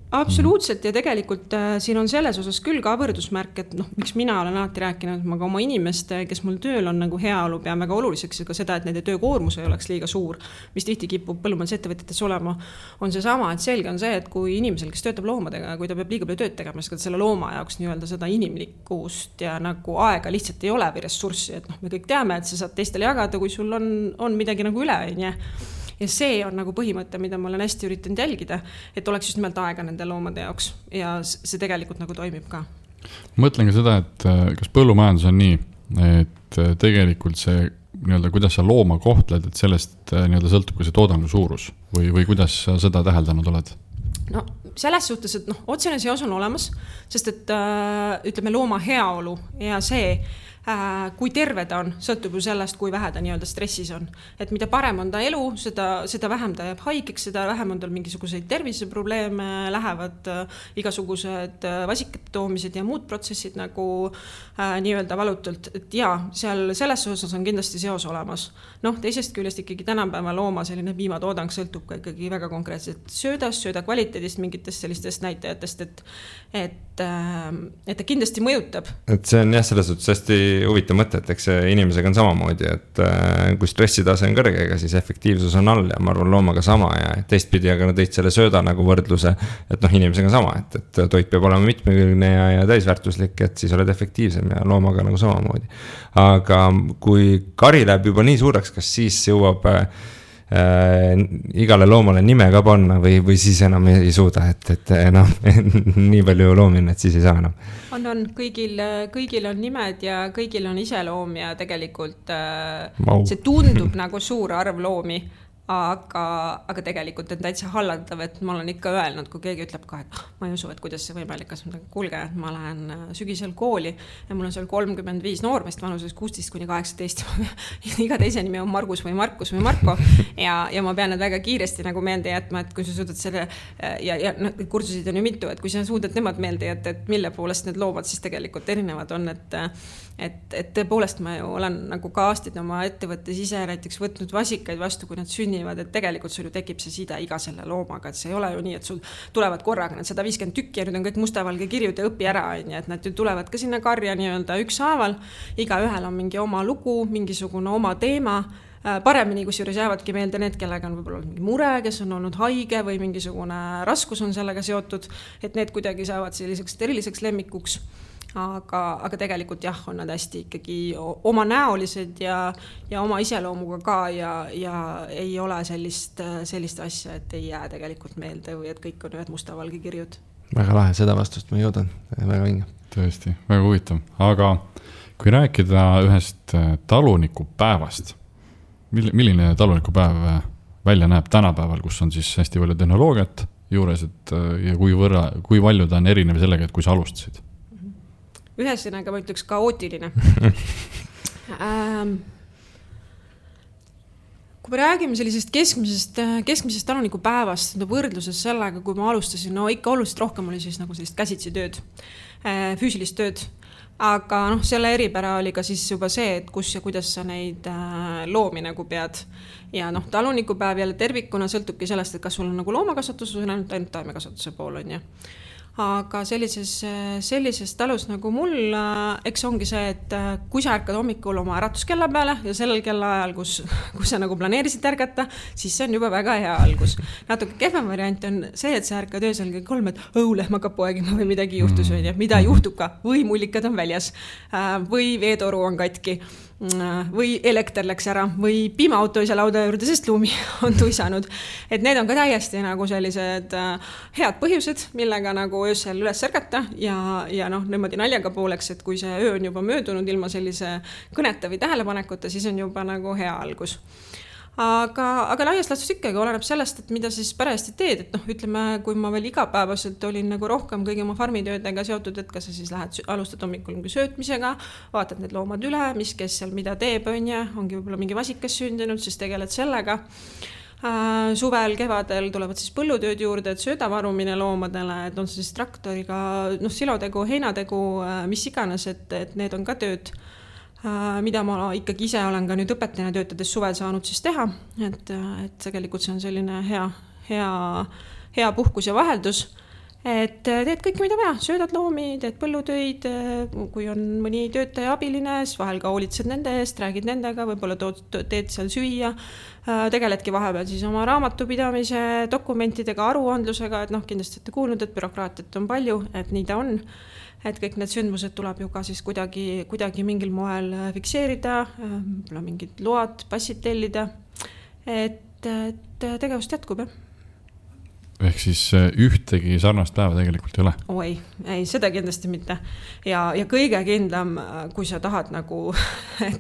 Absoluutselt ja tegelikult siin on selles osas küll ka võrdusmärk, et miks mina olen alati rääkinud, et ma ka oma inimeste, kes mul tööl on nagu heaolu, pean väga oluliseks ka seda, et nende töökoormus ei oleks liiga suur, mis tihti kipub põllumajandusettevõtetes olema, on see sama, et selge on see, et kui inimesel, kes töötab loomadega, kui ta peab liiga palju tööd tegema, siis selle looma jaoks nii-öelda seda inimlikkust ja nagu aega lihtsalt ei ole või ressurssi, et me kõik teame, et sa saad teistele jagada, kui sul on midagi nagu üle, ja see on nagu põhimõte, mida ma olen hästi üritanud jälgida, et oleks just nimelt aega nende loomade jaoks ja see tegelikult nagu toimib ka. Mõtlen ka seda, et kas põllumajandus on nii, et tegelikult see nii-öelda, kuidas sa looma kohtled, et sellest nii-öelda sõltub ka see toodangu suurus või kuidas sa seda täheldanud oled? No selles suhtes, et otsene seos on olemas, sest et ütleme looma heaolu ja see, kui terve ta on, sõltub ju sellest, kui vähe ta nii-öelda stressis on. Et mida parem on ta elu, seda vähem ta jääb haigeks, seda vähem on tal mingisuguseid terviseprobleeme, lähevad igasugused vasikate toomised ja muud protsessid nagu nii-öelda valutult. Et seal selles osas on kindlasti seos olemas. Teisest küljest ikkagi tänapäeva looma selline piimatoodang sõltub ka ikkagi väga konkreetselt sööda kvaliteedist, mingitest sellistest näitajatest, et ta kindlasti mõjutab. Et see on selles suhtes hästi huvitav mõte, et eks inimesega on samamoodi, et kui stressitase on kõrge, ega siis efektiivsus on all ja ma arvan loomaga sama ja teistpidi, aga tõid selle sööda nagu võrdluse, et inimesega on sama, et toit peab olema mitmekülgne ja täisväärtuslik, et siis oled efektiivsem ja loomaga nagu samamoodi. Aga kui kari läheb juba nii suureks, kas siis jõuab igale loomale nime ka panna või siis enam ei suuda, et enam nii palju loomi on, et siis ei saa enam. On, kõigil on nimed ja kõigil on iseloom ja tegelikult see tundub nagu suur arv loomi, aga tegelikult on täitsa hallatav, et ma olen ikka öelnud, kui keegi ütleb ka, et ma ei usu, et kuidas see võimalik on, kuulge, ma lähen sügisel kooli ja mul on seal 35 noormeest vanuses 16-18 iga teise nimi on Margus või Markus või Marko ja ma pean need väga kiiresti nagu meelde jätma, et kui sa suudad selle ja kursusid on ju mitu, et kui sa suudad nemad meelde jätta, et mille poolest need loomad siis tegelikult erinevad on, et tõepoolest ma ju olen nagu ka aastid oma ettevõttes ise näiteks võtnud vasikaid vastu, kui nad sünnivad, et tegelikult sul ju tekib see side iga selle loomaga, et see ei ole ju nii, et sul tulevad korraga need 150 tükki ja nüüd on kõik mustavalge kirjud ja õpi ära, et nad ju tulevad ka sinna karja nii-öelda ükshaaval, iga ühel on mingi oma lugu, mingisugune oma teema, paremini kusjuures jäävadki meelde need, kellega on võib-olla mingi mure, kes on olnud haige või mingisugune raskus on sellega seotud, et need kuidagi saavad selliseks eriliseks lemmikuks. Aga tegelikult on nad hästi ikkagi oma näolised ja oma iseloomuga ka ja ei ole sellist asja, et ei jää tegelikult meelde või et kõik on ühed mustavalge kirjud. Väga lahe, seda vastust ma jõudan, väga vinge. Tõesti, väga huvitav. Aga kui rääkida ühest talunikupäevast, milline talunikupäev välja näeb tänapäeval, kus on siis hästi palju tehnoloogiat juures, ja kui palju ta on erinev sellega, et kui sa alustasid? ühesõnaga ma ütleks kaootiline. Kui me räägime sellisest keskmisest talunikupäevast võrdluses sellega, kui ma alustasin, no ikka oluliselt rohkem oli siis nagu sellist käsitsi tööd, füüsilist tööd. Aga selle eripära oli ka siis juba see, et kus ja kuidas sa neid loomi nagu pead. Ja talunikupäev jälle tervikuna sõltubki sellest, et kas sul on nagu loomakasvatus või ainult taimekasvatuse pool on. Aga sellises talus nagu mul, eks ongi see, et kui sa ärkad hommikul oma äratuskella peale ja sellel kellaajal, kus sa nagu planeerisid ärgata, siis see on juba väga hea algus. Natuke kehvem variant on see, et sa ärkad öösel kell 3, et lehm hakkab poegima või midagi juhtus, mida juhtub ka, või mullikad on väljas, või veetoru on katki, või elekter läks ära, või piimaauto ei saa lauda juurde, sest lumi on tuisanud. Et need on ka täiesti nagu sellised head põhjused, millega nagu öösel üles ärgata ja niimoodi naljaga pooleks, et kui see öö on juba möödunud ilma sellise kõneta või tähelepanekuta, siis on juba nagu hea algus. Aga laias laastus ikkagi oleneb sellest, et mida siis parajasti teed, et ütleme, kui ma veel igapäevaselt olin nagu rohkem kõigi oma farmitöödega seotud, et kas sa siis alustad hommikul söötmisega, vaatad need loomad üle, mis kes seal mida teeb, ongi võib-olla mingi vasikas sündinud, siis tegeled sellega. Suvel, kevadel tulevad siis põllutööd juurde, et söödavarumine loomadele, et on siis traktoriga, silotegu, heinategu, mis iganes, et need on ka tööd, mida ma ikkagi ise olen ka nüüd õpetajana töötades suvel saanud siis teha, et tegelikult see on selline hea puhkus ja vaheldus, et teed kõike, mida vaja, söödad loomi, teed põllutöid, kui on mõni töötaja abiline, siis vahel ka hoolitsed nende eest, räägid nendega, võib-olla teed seal süüa, tegeledki vahepeal siis oma raamatupidamise dokumentidega, aruandlusega, et kindlasti olete kuulnud, et bürokraatiat on palju, et nii ta on. Et kõik need sündmused tuleb ju ka siis kuidagi mingil moel fikseerida, mingid load, passid tellida, et tegevust jätkub, jah. Ehk siis ühtegi sarnast päeva tegelikult ei ole? Ei, seda kindlasti mitte. Ja kõige kindlam, kui sa tahad nagu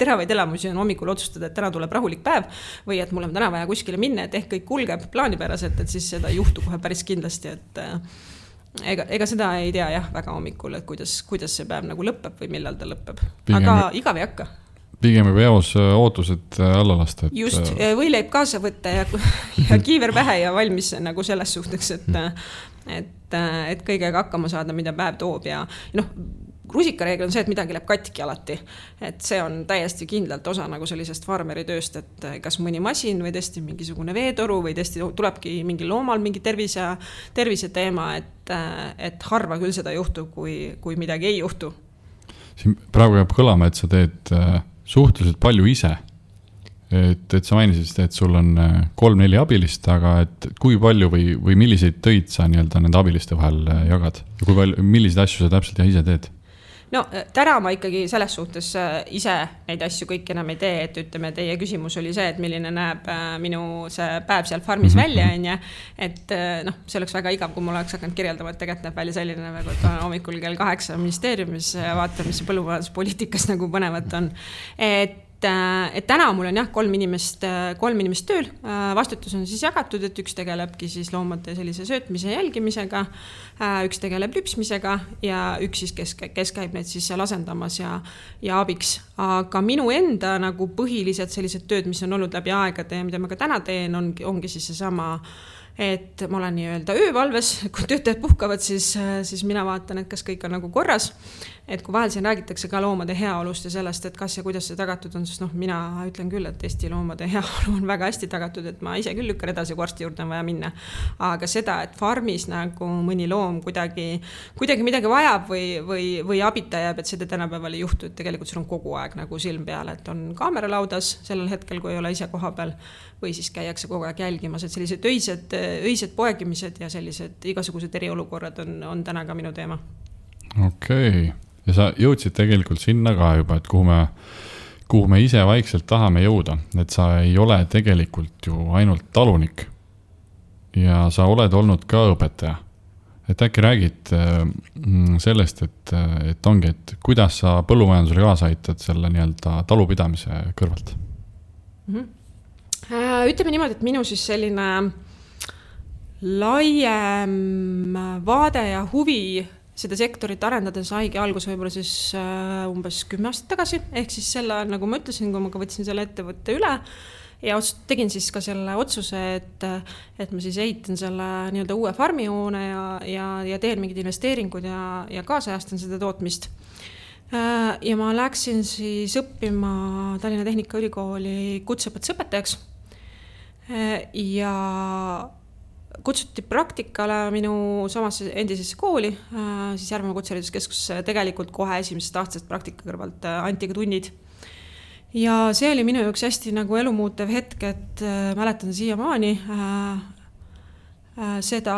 teravaid elamusi on hommikul otsustada, et täna tuleb rahulik päev või et mul on täna vaja kuskile minna, et ehk kõik kulgeb plaanipäraselt, et siis seda ei juhtu kohe päris kindlasti, et ega seda ei tea jah väga hommikul, et kuidas see päev nagu lõpeb või millal ta lõpeb. Aga igav ei hakka. Pigem juba eos ootused alla lasta. Just, võileib kaasa võtta ja kiiver pähe ja valmis nagu selles suhteks, et kõigega hakkama saada, mida päev toob ja rusikareegel on see, et midagi läheb katki alati. Et see on täiesti kindlalt osa nagu sellisest farmeri tööst, et kas mõni masin või tõesti mingisugune veetoru või tõesti tulebki mingi loomal mingi tervise teema, et harva küll seda juhtub, kui midagi ei juhtu. Siin praegu jääb kõlama, et sa teed suhteliselt palju ise. Et sa mainisid, et sul on 3-4 abilist, aga et kui palju või milliseid töid sa nende abiliste vahel jagad? Ja kui palju, milliseid asju sa täpselt ise teed? Täna ma ikkagi selles suhtes ise neid asju kõik enam ei tee, et ütleme, teie küsimus oli see, et milline näeb minu see päev seal farmis välja, et see oleks väga igav, kui mul oleks hakanud kirjeldama, et tegelikult näeb välja selline, nagu et hommikul kell 8 ministeeriumis vaatan, mis põllumajanduspoliitikas nagu põnevat on, et täna mul on jah 3 inimest tööl, vastutus on siis jagatud, et üks tegelebki siis loomade sellise söötmise jälgimisega, üks tegeleb lüpsmisega ja üks siis, kes käib neid siis seal asendamas ja abiks. Aga minu enda nagu põhilised sellised tööd, mis on olnud läbi aegade ja mida ma ka täna teen, ongi siis seesama, et ma olen nii-öelda öövalves, kui töötajad puhkavad, siis mina vaatan, et kas kõik on nagu korras. Et kui vahel siin räägitakse ka loomade heaolust ja sellest, et kas ja kuidas see tagatud on, sest mina ütlen küll, et Eesti loomade heaolu on väga hästi tagatud, et ma ise küll lükkan edasi, kui arsti juurde on vaja minna. Aga seda, et farmis nagu mõni loom kuidagi midagi vajab või abita jääb, et seda tänapäeval ei juhtu, et tegelikult sul on kogu aeg nagu silm peal, et on kaamera laudas sellel hetkel, kui ei ole ise koha peal või siis käiakse kogu aeg jälgimas, et sellised öised poegimised ja sellised igasugused eriolukorrad on täna ka minu teema. Okei. Ja sa jõudsid tegelikult sinna ka juba, et kuhu me ise vaikselt tahame jõuda, et sa ei ole tegelikult ju ainult talunik ja sa oled olnud ka õpetaja. Et äkki räägid sellest, et ongi, et kuidas sa põllumajandusele kaasa aitad selle nii-öelda talupidamise kõrvalt? Ütleme niimoodi, et minu siis selline laiem vaade ja huvi seda sektorit arendada saigi algus võib-olla siis umbes 10 aastat tagasi, ehk siis selle ajal, nagu ma ütlesin, kui ma ka võtsin selle ettevõtte üle ja tegin siis ka selle otsuse, et ma siis ehitan selle nii-öelda uue farmihoone ja teen mingid investeeringud ja kaasajastan seda tootmist. Ja ma läksin siis õppima Tallinna Tehnikaülikooli kutseõpetusõpetajaks ja kutsuti praktikale minu samasse endisesse kooli, siis Järvemaa Kutsehariduskeskusse, tegelikult kohe esimesest aastast praktika kõrvalt anti ka tunnid. Ja see oli minu jaoks hästi nagu elumuutev hetk, et mäletan siiamaani seda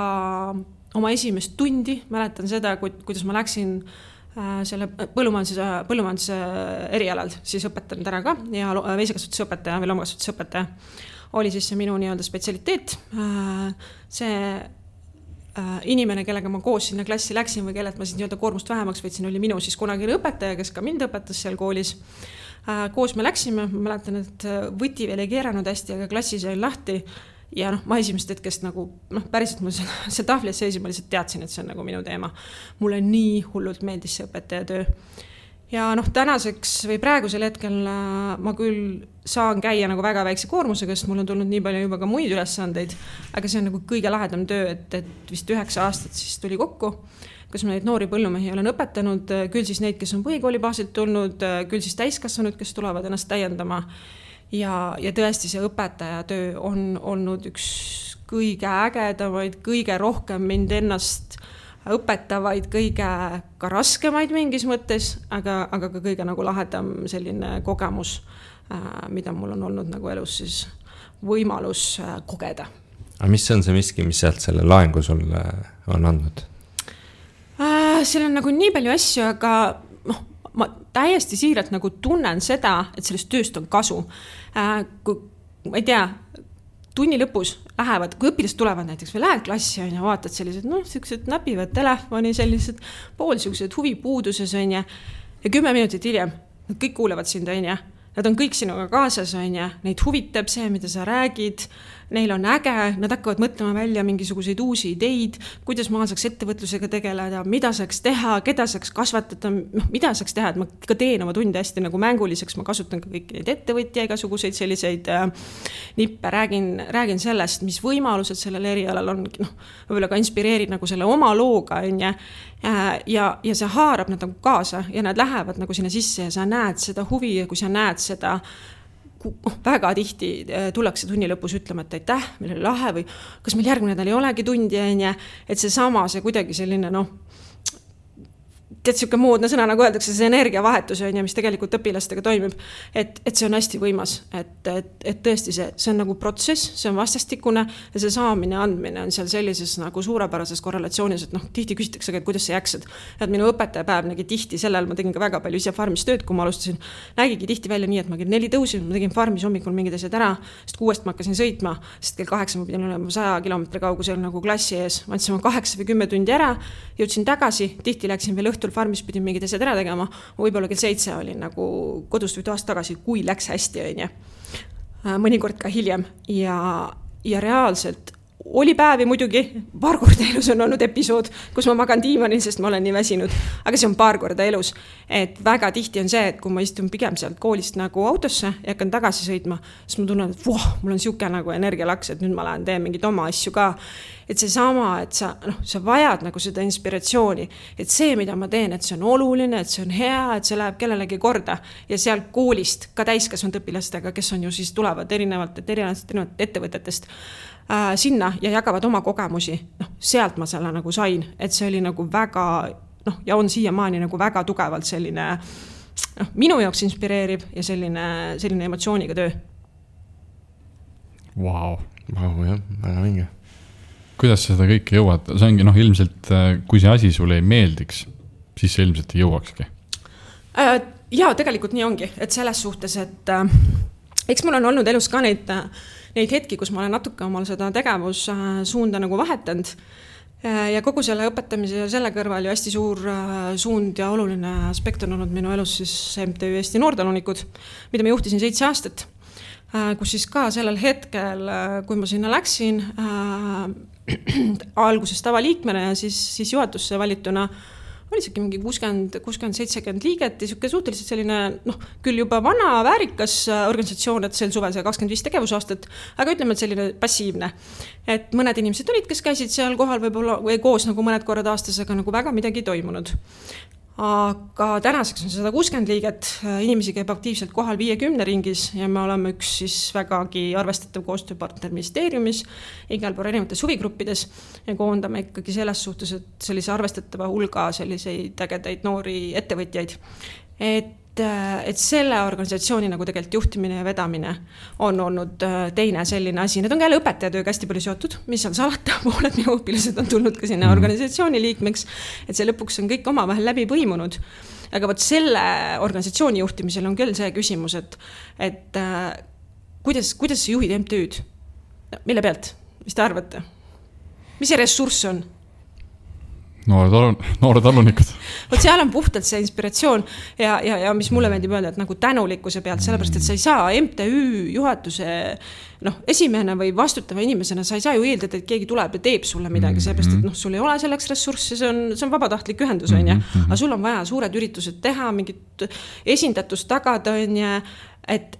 oma esimest tundi, mäletan seda, kuidas ma läksin selle põllumajanduse erialal, siis õpetan täna ka ja veisekasvatusõpetaja või loomakasvatusõpetaja oli siis see minu nii-öelda spetsialiteet. See inimene, kellega ma koos sinna klassi läksin või kellelt ma siis nii-öelda koormust vähemaks võtsin, oli minu siis kunagine õpetaja, kes ka mind õpetas seal koolis. Koos me läksime, ma mäletan, et võti veel ei keeranud hästi, aga klassis jäi lahti. Ja ma esimest hetkest nagu, päriselt mul see tahvlis seisi, ma lihtsalt teadsin, et see on nagu minu teema. Mulle nii hullult meeldis see õpetaja töö. Ja tänaseks või praegusel hetkel ma küll saan käia nagu väga väikse koormusega, sest mul on tulnud nii palju juba ka muid ülesandeid, aga see on nagu kõige lahedam töö, et vist 9 aastat siis tuli kokku, kus ma neid noori põllumehi olen õpetanud, küll siis neid, kes on põhikooli baasilt tulnud, küll siis täiskasvanud, kes tulevad ennast täiendama. Ja tõesti see õpetaja töö on olnud üks kõige ägedamaid, kõige rohkem mind ennast õpetavaid, kõige ka raskemaid mingis mõttes, aga ka kõige nagu lahedam selline kogemus, mida mul on olnud nagu elus siis võimalus kogeda. Aga mis on see miski, mis sealt selle laengu sulle on andnud? Seal on nagu nii palju asju, aga ma täiesti siiralt nagu tunnen seda, et sellest tööst on kasu. Kui, ma ei tea, tunni lõpus lähevad, kui õpilased tulevad näiteks või lähed klassi ja vaatad sellised, sellised näpivad telefoni, sellised poolsiuksed huvipuuduses on ja 10 minutit hiljem nad kõik kuulevad sind on ja nad on kõik sinuga kaasas on ja neid huvitab see, mida sa räägid, neil on äge, nad hakkavad mõtlema välja mingisuguseid uusi ideid, kuidas ma saaks ettevõtlusega tegeleda, mida saaks teha, keda saaks kasvatada, mida saaks teha, et ma ka teen oma tunde hästi nagu mänguliseks, ma kasutan ka kõiki neid ettevõtja, igasuguseid selliseid nippe, räägin sellest, mis võimalused sellel erialal on, võib-olla ka inspireerid nagu selle oma looga on ja see haarab nad nagu kaasa ja nad lähevad nagu sinna sisse ja sa näed seda huvi ja kui sa näed seda väga tihti tullakse tunni lõpus ütlema, et aitäh, meil oli lahe või kas meil järgmine nädal ei olegi tundi ja et see kuidagi selline tead siuke moodne sõna, nagu öeldakse, see energiavahetus on ja mis tegelikult õpilastega toimib, et see on hästi võimas, et tõesti see on nagu protsess, see on vastastikune ja see saamine andmine on seal sellises nagu suurepärases korrelatsioonis, et tihti küsitakse, et kuidas sa jaksad. Et minu õpetajapäev nägi tihti sellel, ma tegin ka väga palju ise farmis tööd, kui ma alustasin, nägigi tihti välja nii, et ma kell 4 tõusin, ma tegin farmis hommikul mingid asjad ära, sest 6 ma hakkasin sõitma, sest kell 8 ma pidin olema 100 kilomeetri kaugusel nagu klassi ees, ma andsin 8 või 10 tundi ära, jõudsin tagasi, tihti läksin veel õhtul farmis pidin mingid asjad ära tegema, võib-olla kell 7 olin nagu kodust või toast tagasi, kui läks hästi on ja mõnikord ka hiljem ja reaalselt oli päevi muidugi, paar korda elus on olnud episood, kus ma magan diivanil, sest ma olen nii väsinud, aga see on paar korda elus, et väga tihti on see, et kui ma istun pigem sealt koolist nagu autosse ja hakkan tagasi sõitma, siis ma tunnen, et mul on siuke nagu energialaks, et nüüd ma lähen teen mingid oma asju ka, et see sama, et sa vajad nagu seda inspiratsiooni, et see, mida ma teen, et see on oluline, et see on hea, et see läheb kellelegi korda ja seal koolist ka täiskasvanud õpilastega, kes on ju siis tulevad erinevalt ettevõtetest sinna ja jagavad oma kogemusi, sealt ma selle nagu sain, et see oli nagu väga, ja on siiamaani nagu väga tugevalt selline minu jaoks inspireeriv ja selline emotsiooniga töö. Vau, jah, väga vinge. Kuidas sa seda kõike jõuad? See ongi ilmselt, kui see asi sulle ei meeldiks, siis see ilmselt ei jõuakski. Jaa, tegelikult nii ongi, et selles suhtes, et eks mul on olnud elus ka neid hetki, kus ma olen natuke omal seda tegevussuunda nagu vahetanud ja kogu selle õpetamise ja selle kõrval ju hästi suur suund ja oluline aspekt on olnud minu elus siis MTÜ Eesti Noortalunikud, mida ma juhtisin 7 aastat, kus siis ka sellel hetkel, kui ma sinna läksin alguses tavaliikmena ja siis juhatusse valituna, oli isegi mingi 60-70 liiget ja siuke suhteliselt selline, küll juba vana väärika organisatsioon, et sel suvel see 25 tegevusaastat, aga ütleme, et selline passiivne. Et mõned inimesed olid, kes käisid seal kohal võib-olla või koos nagu mõned korrad aastas, aga nagu väga midagi toimunud. Aga tänaseks on 160 liiget, inimesi käib aktiivselt kohal 50 ringis ja me oleme üks siis vägagi arvestatav koostööpartner ministeeriumis, igal pool erinevates huvigruppides ja koondame ikkagi selles suhtes, et sellise arvestatava hulga selliseid ägedaid noori ettevõtjaid. Et selle organisatsiooni nagu tegelikult juhtimine ja vedamine on olnud teine selline asi. Need on ka jälle õpetajatööga hästi palju seotud, mis on salata, pooled minu õpilased on tulnud ka sinna organisatsiooni liikmeks, et see lõpuks on kõik omavahel läbi põimunud. Aga võt selle organisatsiooni juhtimisel on küll see küsimus, et kuidas sa juhid MTÜ-d? Mille pealt? Mis te arvate? Mis see ressurss on? Noored talunikud. Võt seal on puhtalt see inspiratsioon ja mis mulle meeldib öelda, et nagu tänulikkuse pealt, sellepärast, et sa ei saa MTÜ juhatuse esimene või vastutava inimesena, sa ei saa ju eeldada, et keegi tuleb ja teeb sulle midagi, sellepärast, et sul ei ole selleks ressurssi, see on vabatahtlik ühendus, on ja? Aga sul on vaja suured üritused teha, mingit esindatust tagada, on ja et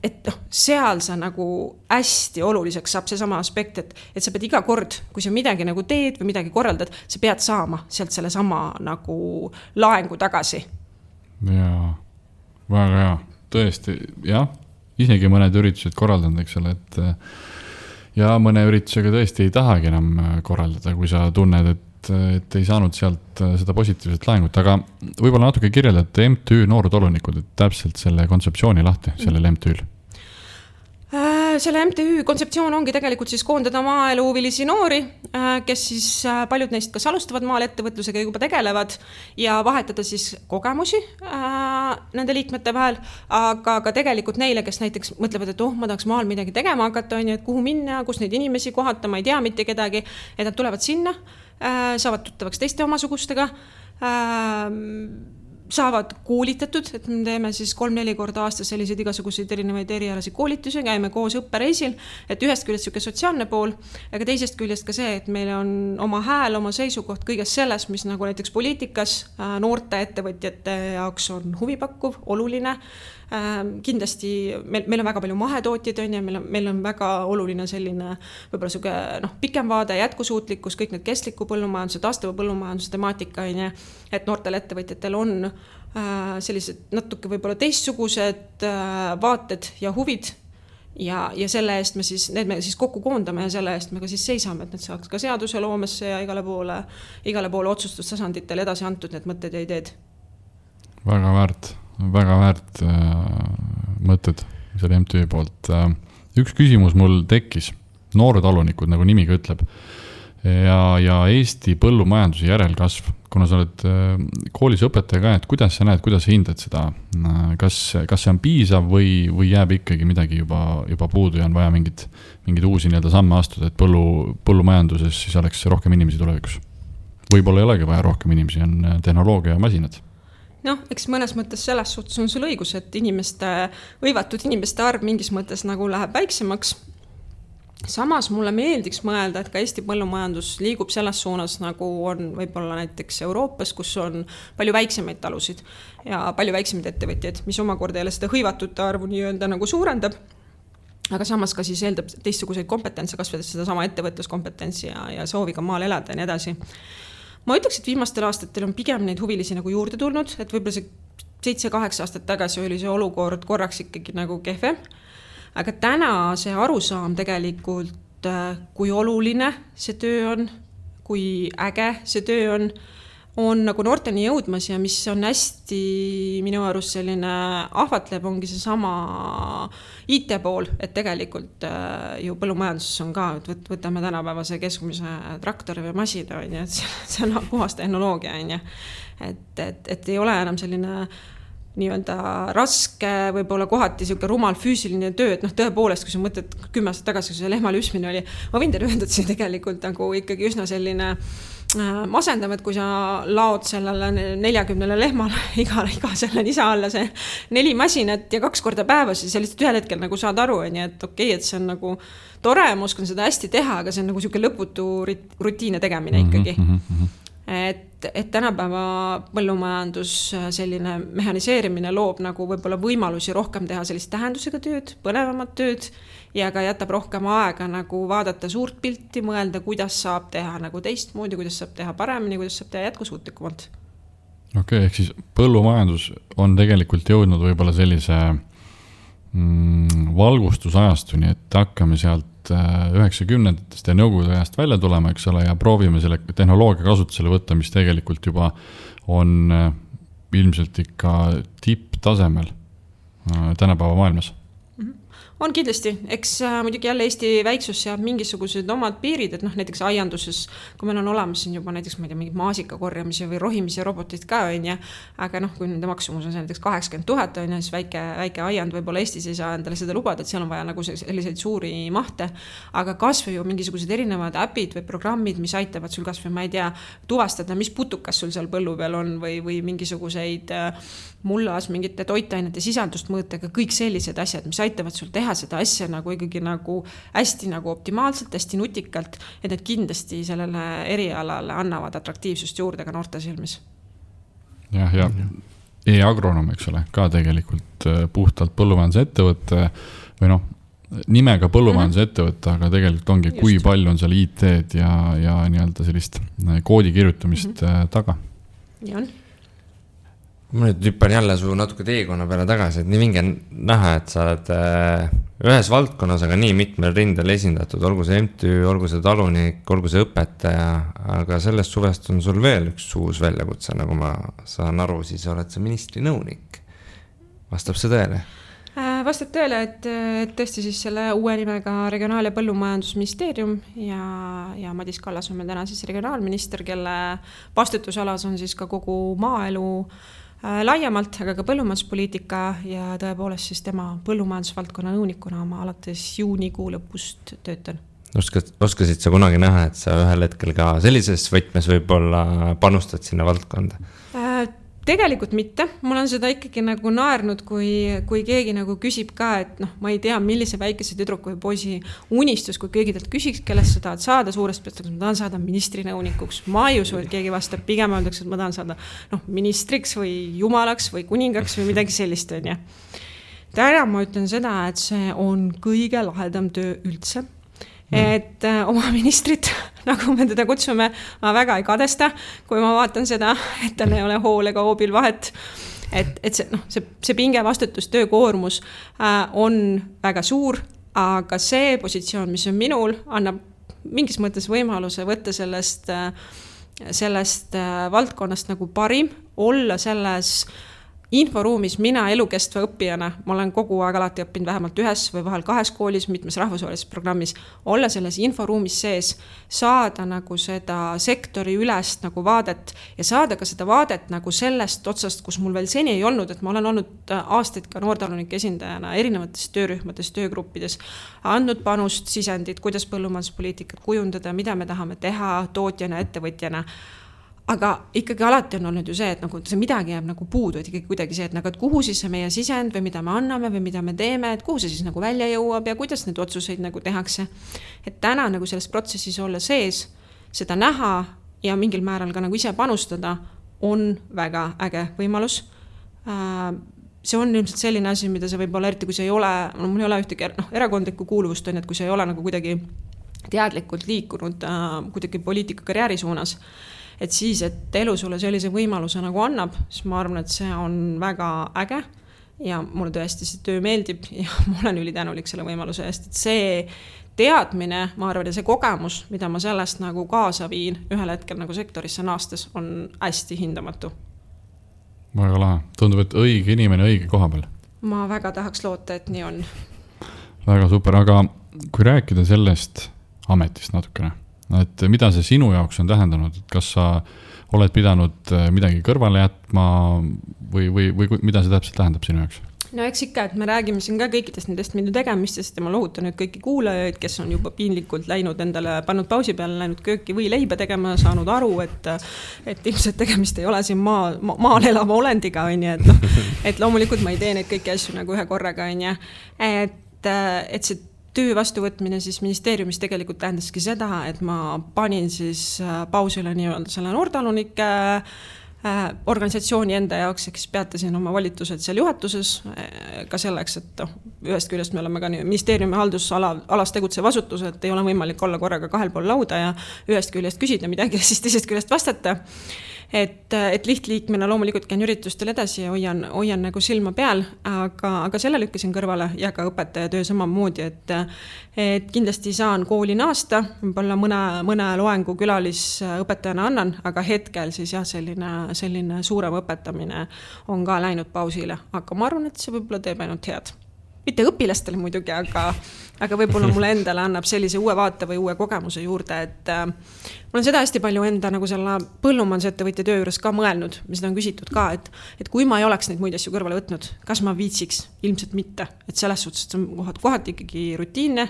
seal sa nagu hästi oluliseks saab see sama aspekt, et sa pead iga kord, kui sa midagi nagu teed või midagi korraldad, sa pead saama sealt selle sama nagu laengu tagasi. Jaa, väga hea, tõesti, jah, isegi mõned üritused korraldanud, eks ole, et ja mõne üritusega tõesti ei tahagi enam korraldada, kui sa tunned, et ei saanud sealt seda positiivset laengut, aga võib-olla natuke kirjeldate MTÜ Noored Talunikud, et täpselt selle kontseptsiooni lahti, sellel MTÜ-l. Selle MTÜ kontseptsioon ongi tegelikult siis koondada maaeluhuvilisi noori, kes siis paljud neist kas alustavad maal ettevõtlusega juba tegelevad ja vahetada siis kogemusi nende liikmete vahel, aga ka tegelikult neile, kes näiteks mõtlevad, et ma tahaks maal midagi tegema hakata, on ju, et kuhu minna, kus neid inimesi kohata, ma ei tea mitte kedagi, et nad tulevad sinna, saavad tuttavaks teiste omasugustega, saavad koolitatud, et me teeme siis 3-4 korda aastas selliseid igasuguseid erinevaid erialasi koolitusi, käime koos õppereisil, et ühest küljest siuke sotsiaalne pool, aga teisest küljest ka see, et meil on oma hääl, oma seisukoht kõiges selles, mis nagu näiteks poliitikas noorte ettevõtjate jaoks on huvipakkuv, oluline. Kindlasti meil on väga palju mahetootjaid on ja meil on väga oluline selline võib-olla siuke pikem vaade, jätkusuutlikkus, kõik need kestliku põllumajanduse, taastuva põllumajanduse temaatika on ja, et noortel ettevõtjatel on sellised natuke võib-olla teistsugused vaated ja huvid ja selle eest me siis kokku koondame ja selle eest me ka siis seisame, et need saaks ka seaduse loomesse ja igale poole otsustustasanditele edasi antud need mõtted ja ideed. Väga väärt mõtted selle MTÜ poolt. Üks küsimus mul tekkis, Noored Talunikud, nagu nimi ka ütleb, ja Eesti põllumajanduse järelkasv, kuna sa oled koolis õpetaja ka, et kuidas sa näed, kuidas sa hindad seda, kas see on piisav või jääb ikkagi midagi juba puudu ja on vaja mingid uusi samme astuda, et põllumajanduses siis oleks rohkem inimesi tulevikus? Võib-olla ei olegi vaja rohkem inimesi, on tehnoloogia ja masinad. Eks mõnes mõttes selles suhtes on sul õigus, et võivatud inimeste arv mingis mõttes nagu läheb väiksemaks. Samas mulle meeldiks mõelda, et ka Eesti põllumajandus liigub selles suunas, nagu on võib-olla näiteks Euroopas, kus on palju väiksemaid talusid ja palju väiksemaid ettevõtjaid, mis omakorda jälle seda hõivatute arvu nii-öelda nagu suurendab. Aga samas ka siis eeldab teistsuguseid kompetentse, kasvades seda sama ettevõtluskompetentsi ja sooviga maal elada ja nii edasi. Ma ütleks, et viimastel aastatel on pigem neid huvilisi nagu juurde tulnud, et võib-olla see 7-8 aastat tagasi oli see olukord korraks ikkagi nagu kehvem. Aga täna see arusaam tegelikult, kui oluline see töö on, kui äge see töö on nagu noorteni jõudmas ja mis on hästi minu arust selline ahvatleb, ongi see sama IT pool, et tegelikult ju põllumajanduses on ka, et võtame tänapäevase keskmise traktori või masina, et see on puhas tehnoloogia, et ei ole enam selline nii-öelda raske, võib-olla kohati siuke rumal füüsiline töö, et tõepoolest, kui sa mõtled 10 aastat tagasi, kui see lehma lüsmine oli, ma võin teile öelda, et see tegelikult nagu ikkagi üsna selline masendav, et kui sa laod sellele 40 lehmale iga selle nisa alla see 4 masinat ja 2 korda päevas, siis lihtsalt ühel hetkel nagu saad aru, et okei, et see on nagu tore, ma oskan seda hästi teha, aga see on nagu siuke lõputu rutiine tegemine ikkagi. Et et tänapäeva põllumajandus selline mehhaniseerimine loob nagu võib-olla võimalusi rohkem teha sellist tähendusega tööd, põnevamat tööd ja ka jätab rohkem aega nagu vaadata suurt pilti, mõelda, kuidas saab teha nagu teistmoodi, kuidas saab teha paremini, kuidas saab teha jätkusuutlikumalt. Okei, ehk siis põllumajandus on tegelikult jõudnud võib-olla sellise valgustusajastuni, et hakkame sealt 90-ndatest ja nõukogude ajast välja tulema, eks ole, ja proovime selle tehnoloogia kasutusele võtta, mis tegelikult juba on ilmselt ikka tipptasemel tänapäeva maailmas. On kindlasti, eks muidugi jälle Eesti väiksus seab mingisugused omad piirid, et näiteks aianduses, kui meil on olemas siin juba näiteks mingid maasika korjamise või rohimise robotid ka on ja, aga kui nende maksumus on näiteks 80 000 on ja siis väike aiand võib-olla Eestis ei saa endale seda lubada, et seal on vaja nagu selliseid suuri mahte, aga kasvõi ju mingisugused erinevad äpid või programmid, mis aitavad sul kasvõi, ma ei tea, tuvastada, mis putukas sul seal põllu peal on või mingisuguseid mullas mingite toitainete sisaldust mõõtega, kõik sellised asjad, mis aitavad sul teha seda asja nagu ikkagi nagu hästi nagu optimaalselt, hästi nutikalt, et need kindlasti sellele erialale annavad atraktiivsust juurde ka noorte silmis. Ja e-agronom, eks ole, ka tegelikult puhtalt põllumajanduse ettevõtte või nimega põllumajanduse ettevõtte, aga tegelikult ongi, kui palju on seal IT-d ja nii-öelda sellist koodi kirjutamist taga. Ja on. Ma nüüd hüppan jälle su natuke teekonna peale tagasi, et nii vinge näha, et sa oled ühes valdkonnas, aga nii mitmel rindel esindatud, olgu see MTÜ, olgu see talunik, olgu see õpetaja, aga sellest suvest on sul veel üks uus väljakutse, nagu ma saan aru, siis oled sa ministri nõunik. Vastab see tõele? Vastab tõele, et tõesti siis selle uue nimega Regionaal- ja Põllumajandusministeerium ja Madis Kallas on meil täna siis regionaalminister, kelle vastutusalas on siis ka kogu maaelu laiemalt, aga ka põllumajanduspoliitika ja tõepoolest siis tema põllumajandusvaldkonna nõunikuna ma alates juunikuu lõpust töötan. Oskasid sa kunagi näha, et sa ühel hetkel ka sellises võtmes võib-olla panustad sinna valdkonda? Tegelikult mitte. Mul on seda ikkagi nagu naernud, kui keegi nagu küsib ka, et ma ei tea, millise väikese tüdruku või poisi unistus, kui keegi talt küsiks, kellest sa tahad saada suurest peast, ma tahan saada ministri nõunikuks. Ma ei usu, et keegi vastab, pigem öeldakse, et ma tahan saada ministriks või jumalaks või kuningaks või midagi sellist on ja. Täna ma ütlen seda, et see on kõige lahedam töö üldse. Et oma ministrit, nagu me teda kutsume, ma väga ei kadesta, kui ma vaatan seda, et tal ei ole hool ega hoobil vahet. Et see pinge vastutus, töökoormus on väga suur, aga see positsioon, mis on minul, annab mingis mõttes võimaluse võtta sellest valdkonnast nagu parim, olla selles inforuumis mina elukestva õppijana, ma olen kogu aeg alati õppinud vähemalt ühes või vahel 2 koolis, mitmes rahvusvahelises programmis, olla selles inforuumis sees, saada nagu seda sektori ülest nagu vaadet ja saada ka seda vaadet nagu sellest otsast, kus mul veel seni ei olnud, et ma olen olnud aastaid ka noortalunike esindajana erinevates töörühmades, töögruppides, andnud panust, sisendit, kuidas põllumajanduspoliitikat kujundada, mida me tahame teha tootjana, ettevõtjana. Aga ikkagi alati on olnud ju see, et see midagi jääb nagu puudu, et ikkagi kuidagi see, et kuhu siis see meie sisend või mida me anname või mida me teeme, et kuhu see siis nagu välja jõuab ja kuidas need otsuseid nagu tehakse. Et täna nagu selles protsessis olla sees, seda näha ja mingil määral ka nagu ise panustada on väga äge võimalus. See on ilmselt selline asi, mida see võib olla, eriti kui see ei ole, mul ei ole ühtegi erakondlikku kuuluvust, on, et kui see ei ole nagu kuidagi teadlikult liikunud kuidagi poliitika karjääri suunas, et siis, et elu sulle sellise võimaluse nagu annab, siis ma arvan, et see on väga äge ja mulle tõesti see töö meeldib ja ma olen ülitänulik selle võimaluse eest, et see teadmine, ma arvan, ja see kogemus, mida ma sellest nagu kaasa viin ühel hetkel nagu sektorisse naastes, on hästi hindamatu. Väga lahe. Tundub, et õige inimene õige koha peal. Ma väga tahaks loota, et nii on. Väga super, aga kui rääkida sellest ametist natukene, et mida see sinu jaoks on tähendanud, et kas sa oled pidanud midagi kõrvale jätma või mida see täpselt tähendab sinu jaoks? No eks ikka, et me räägime siin ka kõikidest nendest minu tegemistest ja ma lohutan nüüd kõiki kuulajaid, kes on juba piinlikult läinud endale, pannud pausi peale, läinud kööki või leiba tegema, saanud aru, et ilmselt tegemist ei ole siin maal elava olendiga, et loomulikult ma ei tee neid kõiki asju nagu ühe korraga, et see töö vastuvõtmine siis ministeeriumis tegelikult tähendaski seda, et ma panin siis pausile nii-öelda selle noortalunike organisatsiooni enda jaoks, eks peatasin oma volitused seal juhatuses ka selleks, et ühest küljest me oleme ka ministeeriumi haldusalas tegutsev asutus, et ei ole võimalik olla korraga kahel pool lauda ja ühest küljest küsida midagi ja siis teisest küljest vastata. Et lihtliikmena loomulikult käin üritustel edasi ja hoian nagu silma peal, aga selle lükkasin kõrvale ja ka õpetajatöö samamoodi, et kindlasti saan kooli naasta, võib-olla mõne loengu külalisõpetajana annan, aga hetkel siis jah, selline suurem õpetamine on ka läinud pausile, aga ma arvan, et see võib-olla teeb ainult head. Mitte õpilastele muidugi, aga võib-olla mulle endale annab sellise uue vaate või uue kogemuse juurde, et mul on seda hästi palju enda nagu selle põllumajandusettevõtja töö juures ka mõelnud, mis seda on küsitud ka, et kui ma ei oleks neid muid asju kõrvale võtnud, kas ma viitsiks? Ilmselt mitte, et selles suhtes on kohati ikkagi rutiinne,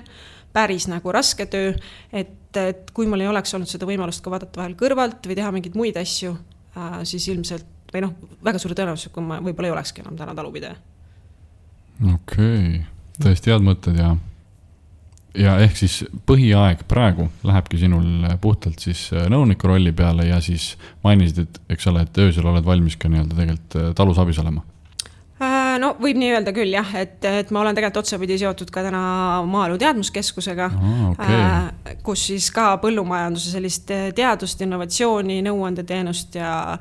päris nagu raske töö, et kui mul ei oleks olnud seda võimalust ka vaadata vahel kõrvalt või teha mingeid muid asju, siis ilmselt, või väga suure tõenäosus, kui ma võib-olla ei olekski enam täna talupidaja. Okei, tõesti head mõtted ja ehk siis põhiaeg praegu lähebki sinul puhtalt siis nõuniku rolli peale ja siis mainisid, et eks ole, et öösel oled valmis ka nii-öelda tegelikult talus abis olema. No võib nii öelda küll jah, et ma olen tegelikult otsapidi seotud ka täna Maaelu Teadmuskeskusega, kus siis ka põllumajanduse sellist teadust, innovatsiooni, nõuandeteenust ja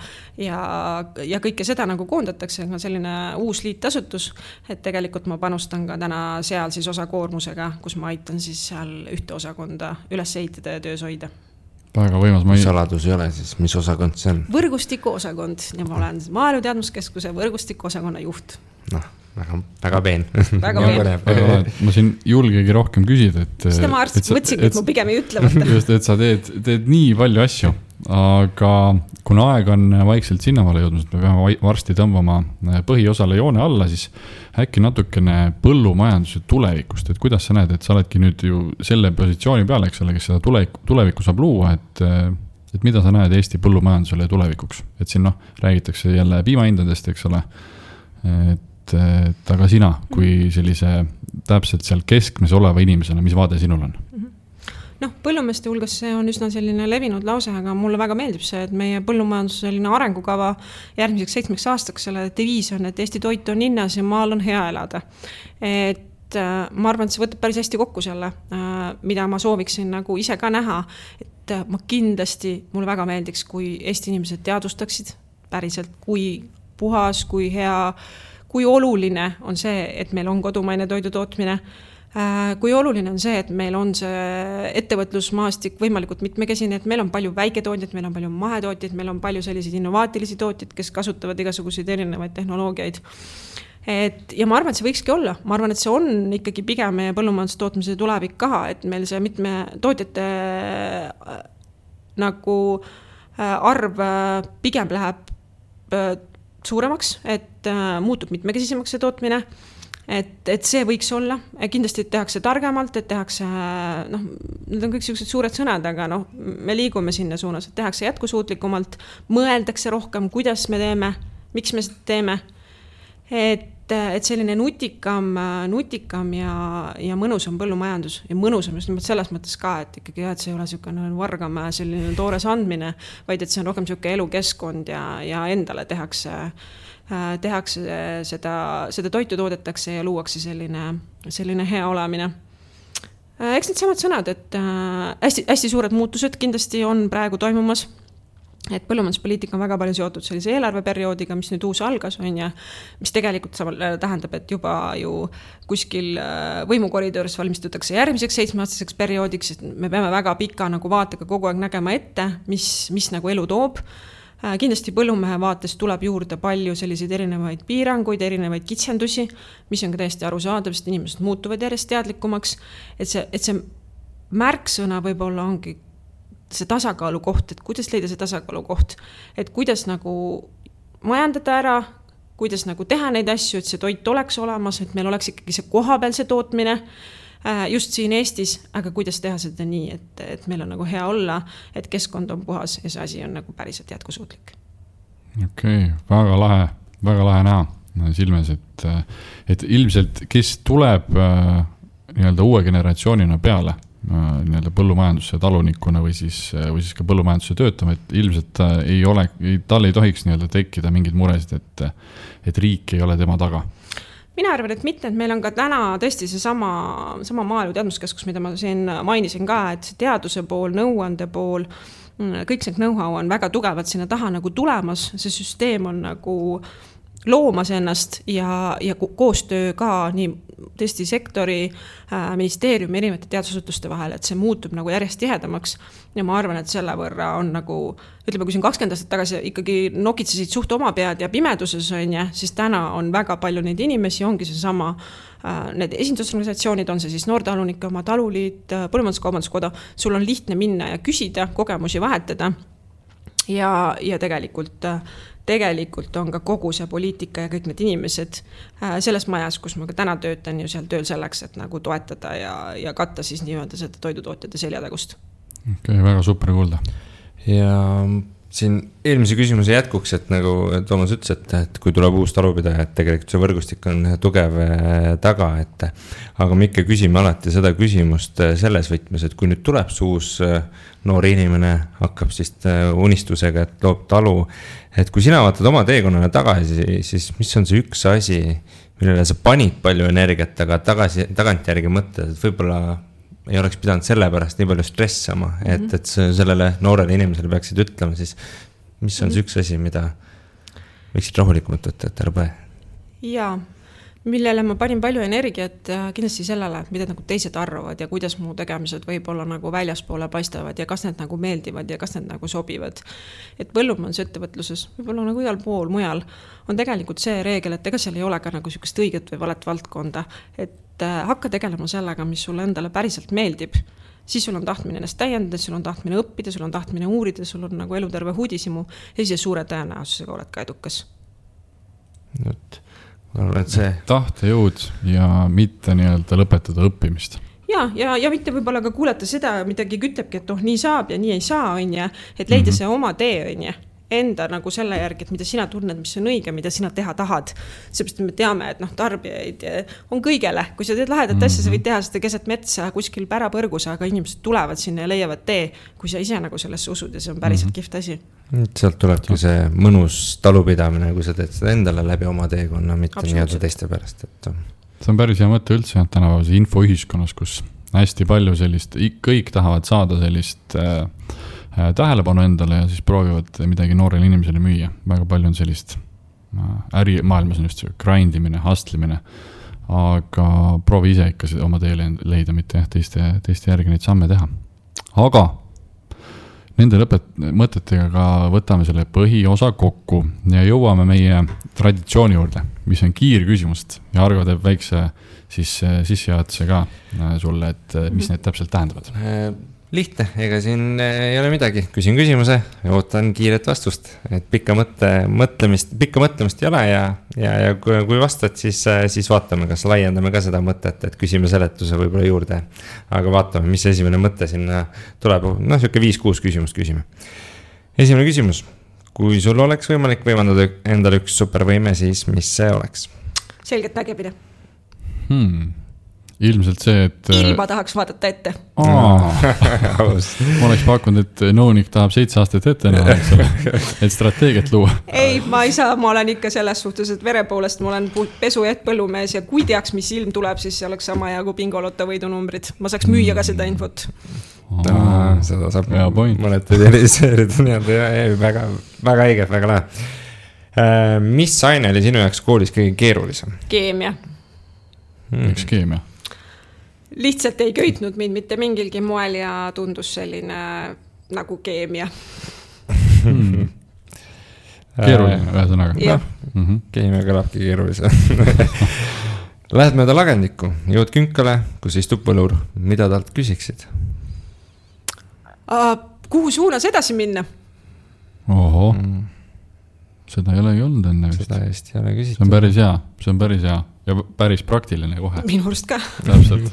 kõike seda nagu koondatakse, selline uus liitasutus, et tegelikult ma panustan ka täna seal siis osakoormusega, kus ma aitan siis seal ühte osakonda üles ehitada ja töös hoida. Väga võimas, saladus ei ole siis, mis osakond see on? Võrgustiku osakond ja ma olen Maaelu Teadmuskeskuse võrgustiku osakonna juht. Väga peen. Väga peen. Ma siin julgegi rohkem küsida, et seda ma mõtsingi, et ma pigem ei ütle võtta. Just, et sa teed nii palju asju, aga kuna aeg on vaikselt sinnamaale jõudnud, me peame varsti tõmbama põhiosale joone alla, siis äkki natukene põllumajanduse tulevikust, et kuidas sa näed, et sa oledki nüüd ju selle positsiooni peale, eks ole, kes seda tulevikku saab luua, et mida sa näed Eesti põllumajandusele tulevikuks, et siin räägitakse jälle piimahindadest, eks ole, et aga sina, kui sellise täpselt seal keskmes oleva inimesena, mis vaade sinul on? Põllumeeste hulgas see on üsna selline levinud lause, aga mulle väga meeldib see, et meie põllumajanduse selline arengukava järgmiseks 7 aastaks selle deviis on, et Eesti toit on hinnas ja maal on hea elada. Et ma arvan, et see võtab päris hästi kokku selle, mida ma sooviksin nagu ise ka näha, et ma kindlasti, mulle väga meeldiks, kui Eesti inimesed teadvustaksid päriselt, kui puhas, kui hea, kui oluline on see, et meil on kodumaine toidutootmine, kui oluline on see, et meil on see ettevõtlusmaastik võimalikult mitmekesine, et meil on palju väiketootjaid, meil on palju mahetootjaid, meil on palju selliseid innovaatilisi tootjaid, kes kasutavad igasuguseid erinevaid tehnoloogiaid. Ja ma arvan, et see võikski olla. Ma arvan, et see on ikkagi pigem meie põllumajandustootmise tulevik ka, et meil see mitme tootjate nagu arv pigem läheb suuremaks, et muutub mitmekesisemaks see tootmine, et see võiks olla, kindlasti tehakse targemalt, et tehakse, need on kõik sellised suured sõnad, aga me liigume sinna suunas, et tehakse jätkusuutlikumalt, mõeldakse rohkem, kuidas me teeme, miks me seda teeme, et selline nutikam ja mõnusam põllumajandus ja mõnusam just selles mõttes ka, et ikkagi et see ei ole selline vargamäe selline toores andmine, vaid et see on rohkem selline elukeskkond ja endale tehakse seda toitu toodetakse ja luuakse selline hea olemine. Eks need samad sõnad, et hästi suured muutused kindlasti on praegu toimumas, et põllumajanduspoliitika on väga palju seotud sellise eelarveperioodiga, mis nüüd uus algas on ja mis tegelikult tähendab, et juba ju kuskil võimukoridoris valmistutakse järgmiseks 7-aastaseks perioodiks, et me peame väga pika nagu vaatega kogu aeg nägema ette, mis nagu elu toob. Kindlasti põllumehe vaates tuleb juurde palju selliseid erinevaid piiranguid, erinevaid kitsendusi, mis on ka täiesti arusaadav, sest inimesed muutuvad järjest teadlikumaks, et see märksõna võib-olla ongi see tasakaalu koht, et kuidas leida see tasakaalu koht, et kuidas nagu majandada ära, kuidas nagu teha neid asju, et see toit oleks olemas, et meil oleks ikkagi see kohapealse tootmine just siin Eestis, aga kuidas teha seda nii, et meil on nagu hea olla, et keskkond on puhas ja see asi on nagu päriselt jätkusuutlik. Okei, väga lahe näha silmes, et ilmselt kes tuleb nii-öelda uue generatsioonina peale nii-öelda põllumajandusse talunikuna või siis ka põllumajandusse töötama, et ilmselt tal ei tohiks nii-öelda tekkida mingeid muresid, et riik ei ole tema taga. Mina arvan, et mitte, et meil on ka täna tõesti see sama maaelu teadmuskeskus, mida ma siin mainisin ka, et see teaduse pool, nõuande pool, kõik see know-how on väga tugevalt sinna taha nagu tulemas, see süsteem on nagu loomas ennast ja koostöö ka nii tõesti sektori, ministeeriumi erinevate teadusasutuste vahel, et see muutub nagu järjest tihedamaks ja ma arvan, et selle võrra on nagu, ütleme, kui siin 20 aastat tagasi ikkagi nokitsesid suht oma pead ja pimeduses on ja, siis täna on väga palju neid inimesi, ongi see sama, need esindusorganisatsioonid, on see siis noortalunike oma taluliit, põllumajanduskaubanduskoda, sul on lihtne minna ja küsida, kogemusi vahetada ja tegelikult on ka kogu see poliitika ja kõik need inimesed selles majas, kus ma ka täna töötan ju seal tööl selleks, et nagu toetada ja katta siis nii-öelda seda toidutootjate seljatagust. Okay, väga super kuulda. Ja siin eelmise küsimuse jätkuks, et nagu Toomas ütles, et kui tuleb uus talupidaja, et tegelikult see võrgustik on tugev taga, aga me ikka küsime alati seda küsimust selles võtmes, et kui nüüd tuleb see uus noor inimene, hakkab siis unistusega, et loob talu, et kui sina vaatad oma teekonnale tagasi, siis mis on see üks asi, millele sa panid palju energiat, aga tagantjärgi mõtled, et võib-olla ei oleks pidanud selle pärast nii palju stressama, et sellele noorele inimesele peaksid ütlema, siis mis on see üks asi, mida võiksid rahulikumalt võtta, et ära põe? Jaa, millele ma panin palju energiat kindlasti sellele, mida nagu teised arvavad ja kuidas mu tegemised võib-olla nagu väljaspoole paistavad ja kas need nagu meeldivad ja kas need nagu sobivad. Et põllumajandusettevõtluses, võib-olla nagu igal pool mujal, on tegelikult see reegel, et ega seal ei ole ka nagu sükest õiget või valet valdkonda, et hakka tegelema sellega, mis sulle endale päriselt meeldib, siis sul on tahtmine ennast täiendada, sul on tahtmine õppida, sul on tahtmine uurida, sul on nagu eluterve huudisimu ja siis suure tõenäosusega oled ka edukas. Tahtejõud ja mitte nii-öelda lõpetada õppimist. Ja mitte võib-olla ka kuulata seda, midagi kütlebki, et nii saab ja nii ei saa, on ja, et leida see oma tee, on ja. Enda nagu selle järgi, et mida sina tunned, mis on õige, mida sina teha tahad. Seepärast me teame, et tarbijaid on kõigele. Kui sa teed lahedat asja, sa võid teha seda keset metsa kuskil pärapõrgus, aga inimesed tulevad sinna ja leiavad tee, kui sa ise nagu sellesse usud ja see on päriselt kihvt asi. Sealt tulebki see mõnus talupidamine, kui sa teed seda endale läbi oma teekonna, mitte nii-öelda teiste pärast. See on päris hea mõte üldse, tänapäevase infoühiskonnas, kus hästi palju sellist, kõik tahavad saada sellist tähelepanu endale ja siis proovivad midagi noorele inimesele müüa. Väga palju on sellist ärimaailmas on just see grindimine, hustlimine, aga proovi ise ikka oma teele leida, mitte teiste järgi neid samme teha. Aga nende mõtetega ka võtame selle põhiosa kokku ja jõuame meie traditsiooni juurde, mis on kiirküsimust ja Argo teeb väikse sissejuhatuse ka sulle, et mis need täpselt tähendavad. Lihtne, ega siin ei ole midagi. Küsin küsimuse ja ootan kiiret vastust. Et pikka mõtlemist ei ole ja kui vastad, siis vaatame, kas laiendame ka seda mõtet, et küsime seletuse võib-olla juurde. Aga vaatame, mis esimene mõte sinna tuleb. Siuke 5-6 küsimust küsime. Esimene küsimus. Kui sul oleks võimalik võimandada endale üks supervõime, siis mis see oleks? Selgelt nägemine. Ilmselt see, et ilma tahaks vaadata ette. Ma oleks pakkunud, et nõunik tahab 7 aastat ette näha, et strateegiat luua. Ei, ma ei saa, ma olen ikka selles suhtes, et vere poolest ma olen pesu ja põllumees ja kui teaks, mis ilm tuleb, siis see oleks sama ja kui bingolotta võidunumbrid. Ma saaks müüa ka seda infot. Seda saab mõned realiseerida. Väga õige, väga lahe. Mis aine oli sinu jaoks koolis kõige keerulisem? Keemia. Miks keemia? Lihtsalt ei köitnud mind mitte mingilgi moel ja tundus selline nagu keemia. Keeruline, ühesõnaga. Jah. Keemia kõlabki keerulise. Lähed mööda lagendikku, jõud künkale, kus istub võlur. Mida talt küsiksid? Kuhu suunas edasi minna? Oho. Seda ei olegi olnud enne vist. Seda just ei ole küsitud. See on päris hea ja päris praktiline kohe. Minu arust ka. Täpselt.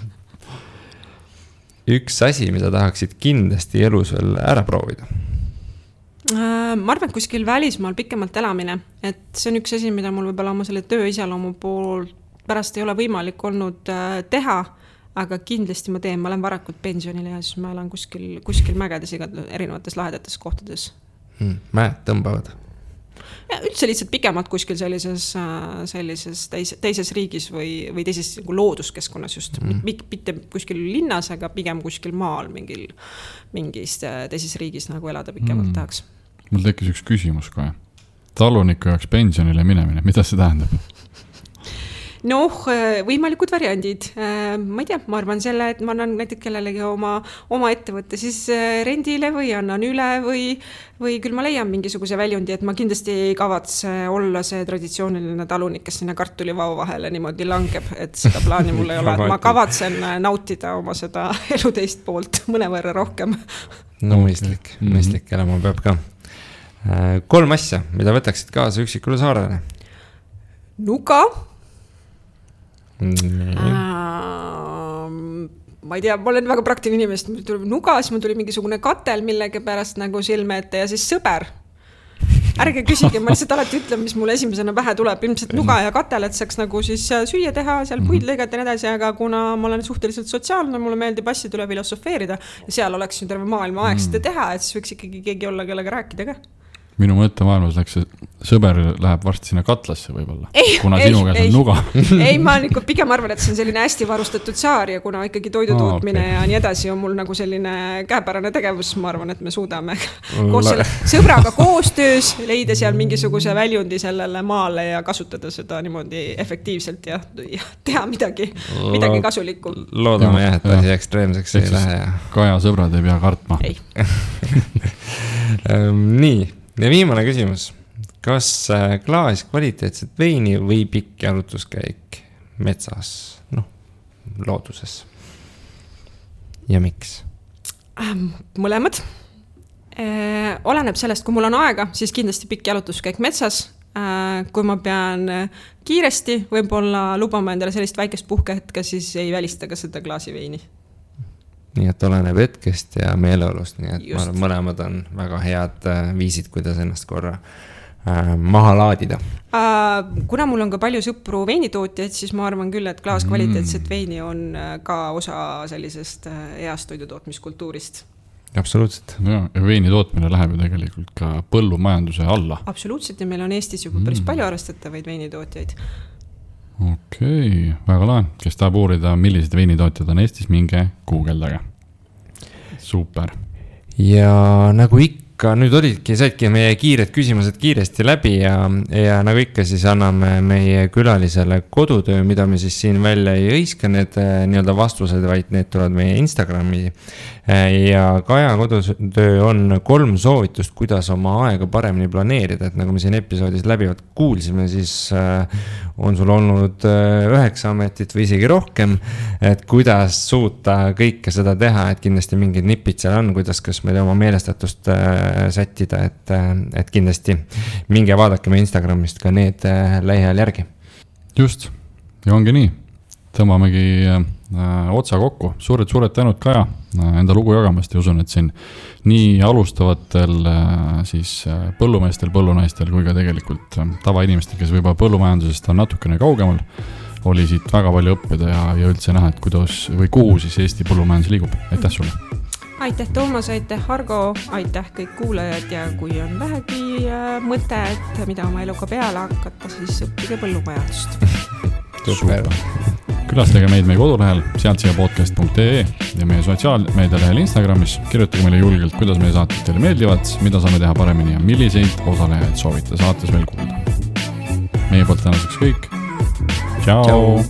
Üks asi, mida tahaksid kindlasti elus veel ära proovida? Ma arvan, kuskil välismaal pikemalt elamine. Et see on üks asi, mida mul võib-olla oma selle töö iseloomu pool pärast ei ole võimalik olnud teha. aga kindlasti ma olen varakult pensionile ja siis ma elan kuskil mägedes erinevates lahedates kohtades. Mäed tõmbavad? Ja üldse lihtsalt pikemalt kuskil sellises teises riigis või teises looduskeskkonnas just. Mitte kuskil linnas, aga pigem kuskil maal mingis teises riigis nagu elada pikemalt tahaks. Mul tekkis üks küsimus kohe. Taluniku jaoks pensionile minemine, mida see tähendab? Võimalikud variandid. Ma ei tea, ma arvan selle, et ma annan näiteks kellelegi oma ettevõtte siis rendile või annan üle või küll ma leian mingisuguse väljundi, et ma kindlasti ei kavatse olla see traditsiooniline talunik, kes sinna kartulivao vahele niimoodi langeb, et seda plaani mul ei ole. Ma kavatsen nautida oma seda elu teist poolt mõnevõrra rohkem. Mõistlik elama peab ka. 3 asja, mida võtaksid kaasa üksikule saarele? Nuga. Ma ei tea, ma olen väga praktiline inimest, mul tuli nuga, siis mul tuli mingisugune katel millegi pärast nagu silme ette ja siis sõber. Ärge küsige, ma lihtsalt alati ütlen, mis mulle esimesena pähe tuleb, ilmselt nuga ja katel, et saaks nagu siis süüa teha, seal puid lõigata ja nii edasi, aga kuna ma olen suhteliselt sotsiaalne, mulle meeldib asjade üle filosofeerida ja seal oleks ju terve maailma aeg seda teha, et siis võiks ikkagi keegi olla, kellega rääkida ka. Minu mõttemaailmas läks see sõber läheb varsti sinna katlasse võib-olla, kuna sinu käes on nuga. Ei, ma pigem arvan, et see on selline hästi varustatud saar ja kuna ikkagi toidutootmine ja nii edasi on mul nagu selline käepärane tegevus, ma arvan, et me suudame koos selle sõbraga koostöös leida seal mingisuguse väljundi sellele maale ja kasutada seda niimoodi efektiivselt ja teha midagi kasulikku. Loodame jah, et asi ekstreemseks ei lähe. Kaja sõbrad ei pea kartma. Ei. Nii. Ja viimane küsimus. Kas klaas kvaliteetset veini või pikk jalutuskäik metsas, looduses? Ja miks? Mõlemad. Oleneb sellest, kui mul on aega, siis kindlasti pikk jalutuskäik metsas. Kui ma pean kiiresti, võib-olla lubama endale sellist väikest puhkehetke, siis ei välista ka seda klaasi veini. Nii et oleneb hetkest ja meeleolust, nii et ma arvan, mõlemad on väga head viisid, kuidas ennast korra maha laadida. Kuna mul on ka palju sõpru veinitootjaid, siis ma arvan küll, et klaas kvaliteetset veini on ka osa sellisest heast toidutootmiskultuurist. Absoluutselt. Ja veini tootmine läheb ju tegelikult ka põllumajanduse alla. Absoluutselt ja meil on Eestis juba päris palju arvestatavaid veinitootjaid. Okei, väga lahe. Kes tahab uurida, millised veinitootjad on Eestis, minge guugeldage. Super. Ja nagu ikka, nüüd saidki meie kiired küsimused kiiresti läbi ja nagu ikka siis anname meie külalisele kodutöö, mida me siis siin välja ei õiska need nii-öelda vastused, vaid need tulevad meie Instagrami. Ja Kaja kodutöö on 3 soovitust, kuidas oma aega paremini planeerida, et nagu me siin episoodis läbivad kuulsime, siis on sul olnud 9 ametit või isegi rohkem, et kuidas suuta kõike seda teha, et kindlasti mingid nipid seal on, kuidas kas meil oma meelestatust sättida, et kindlasti minge vaadake me Instagramist ka need lähiajal järgi. Just, ja ongi nii. Tõmbamegi otsa kokku. Suured tänud Kaja enda lugu jagamast ja usun, et siin nii alustavatel siis põllumeestel, põllunaistel kui ka tegelikult tavainimestel, kes võib-olla põllumajandusest on natukene kaugemal, oli siit väga palju õppida ja üldse näha, et kuidas või kuhu siis Eesti põllumajandus liigub. Aitäh sulle! Aitäh Toomas, aitäh Argo, aitäh kõik kuulajad ja kui on vähegi mõte, et mida oma eluga peale hakata, siis õppige põllumajandust. Super! Külastage meid meie kodulehel sealtsiapodcast.ee ja meie sotsiaalmeedialehel Instagramis. Kirjutage meile julgelt, kuidas meie saated teile meeldivad, mida saame teha paremini ja milliseid osalejaid soovite saates veel kuulda. Meie poolt tänaseks kõik. Ciao!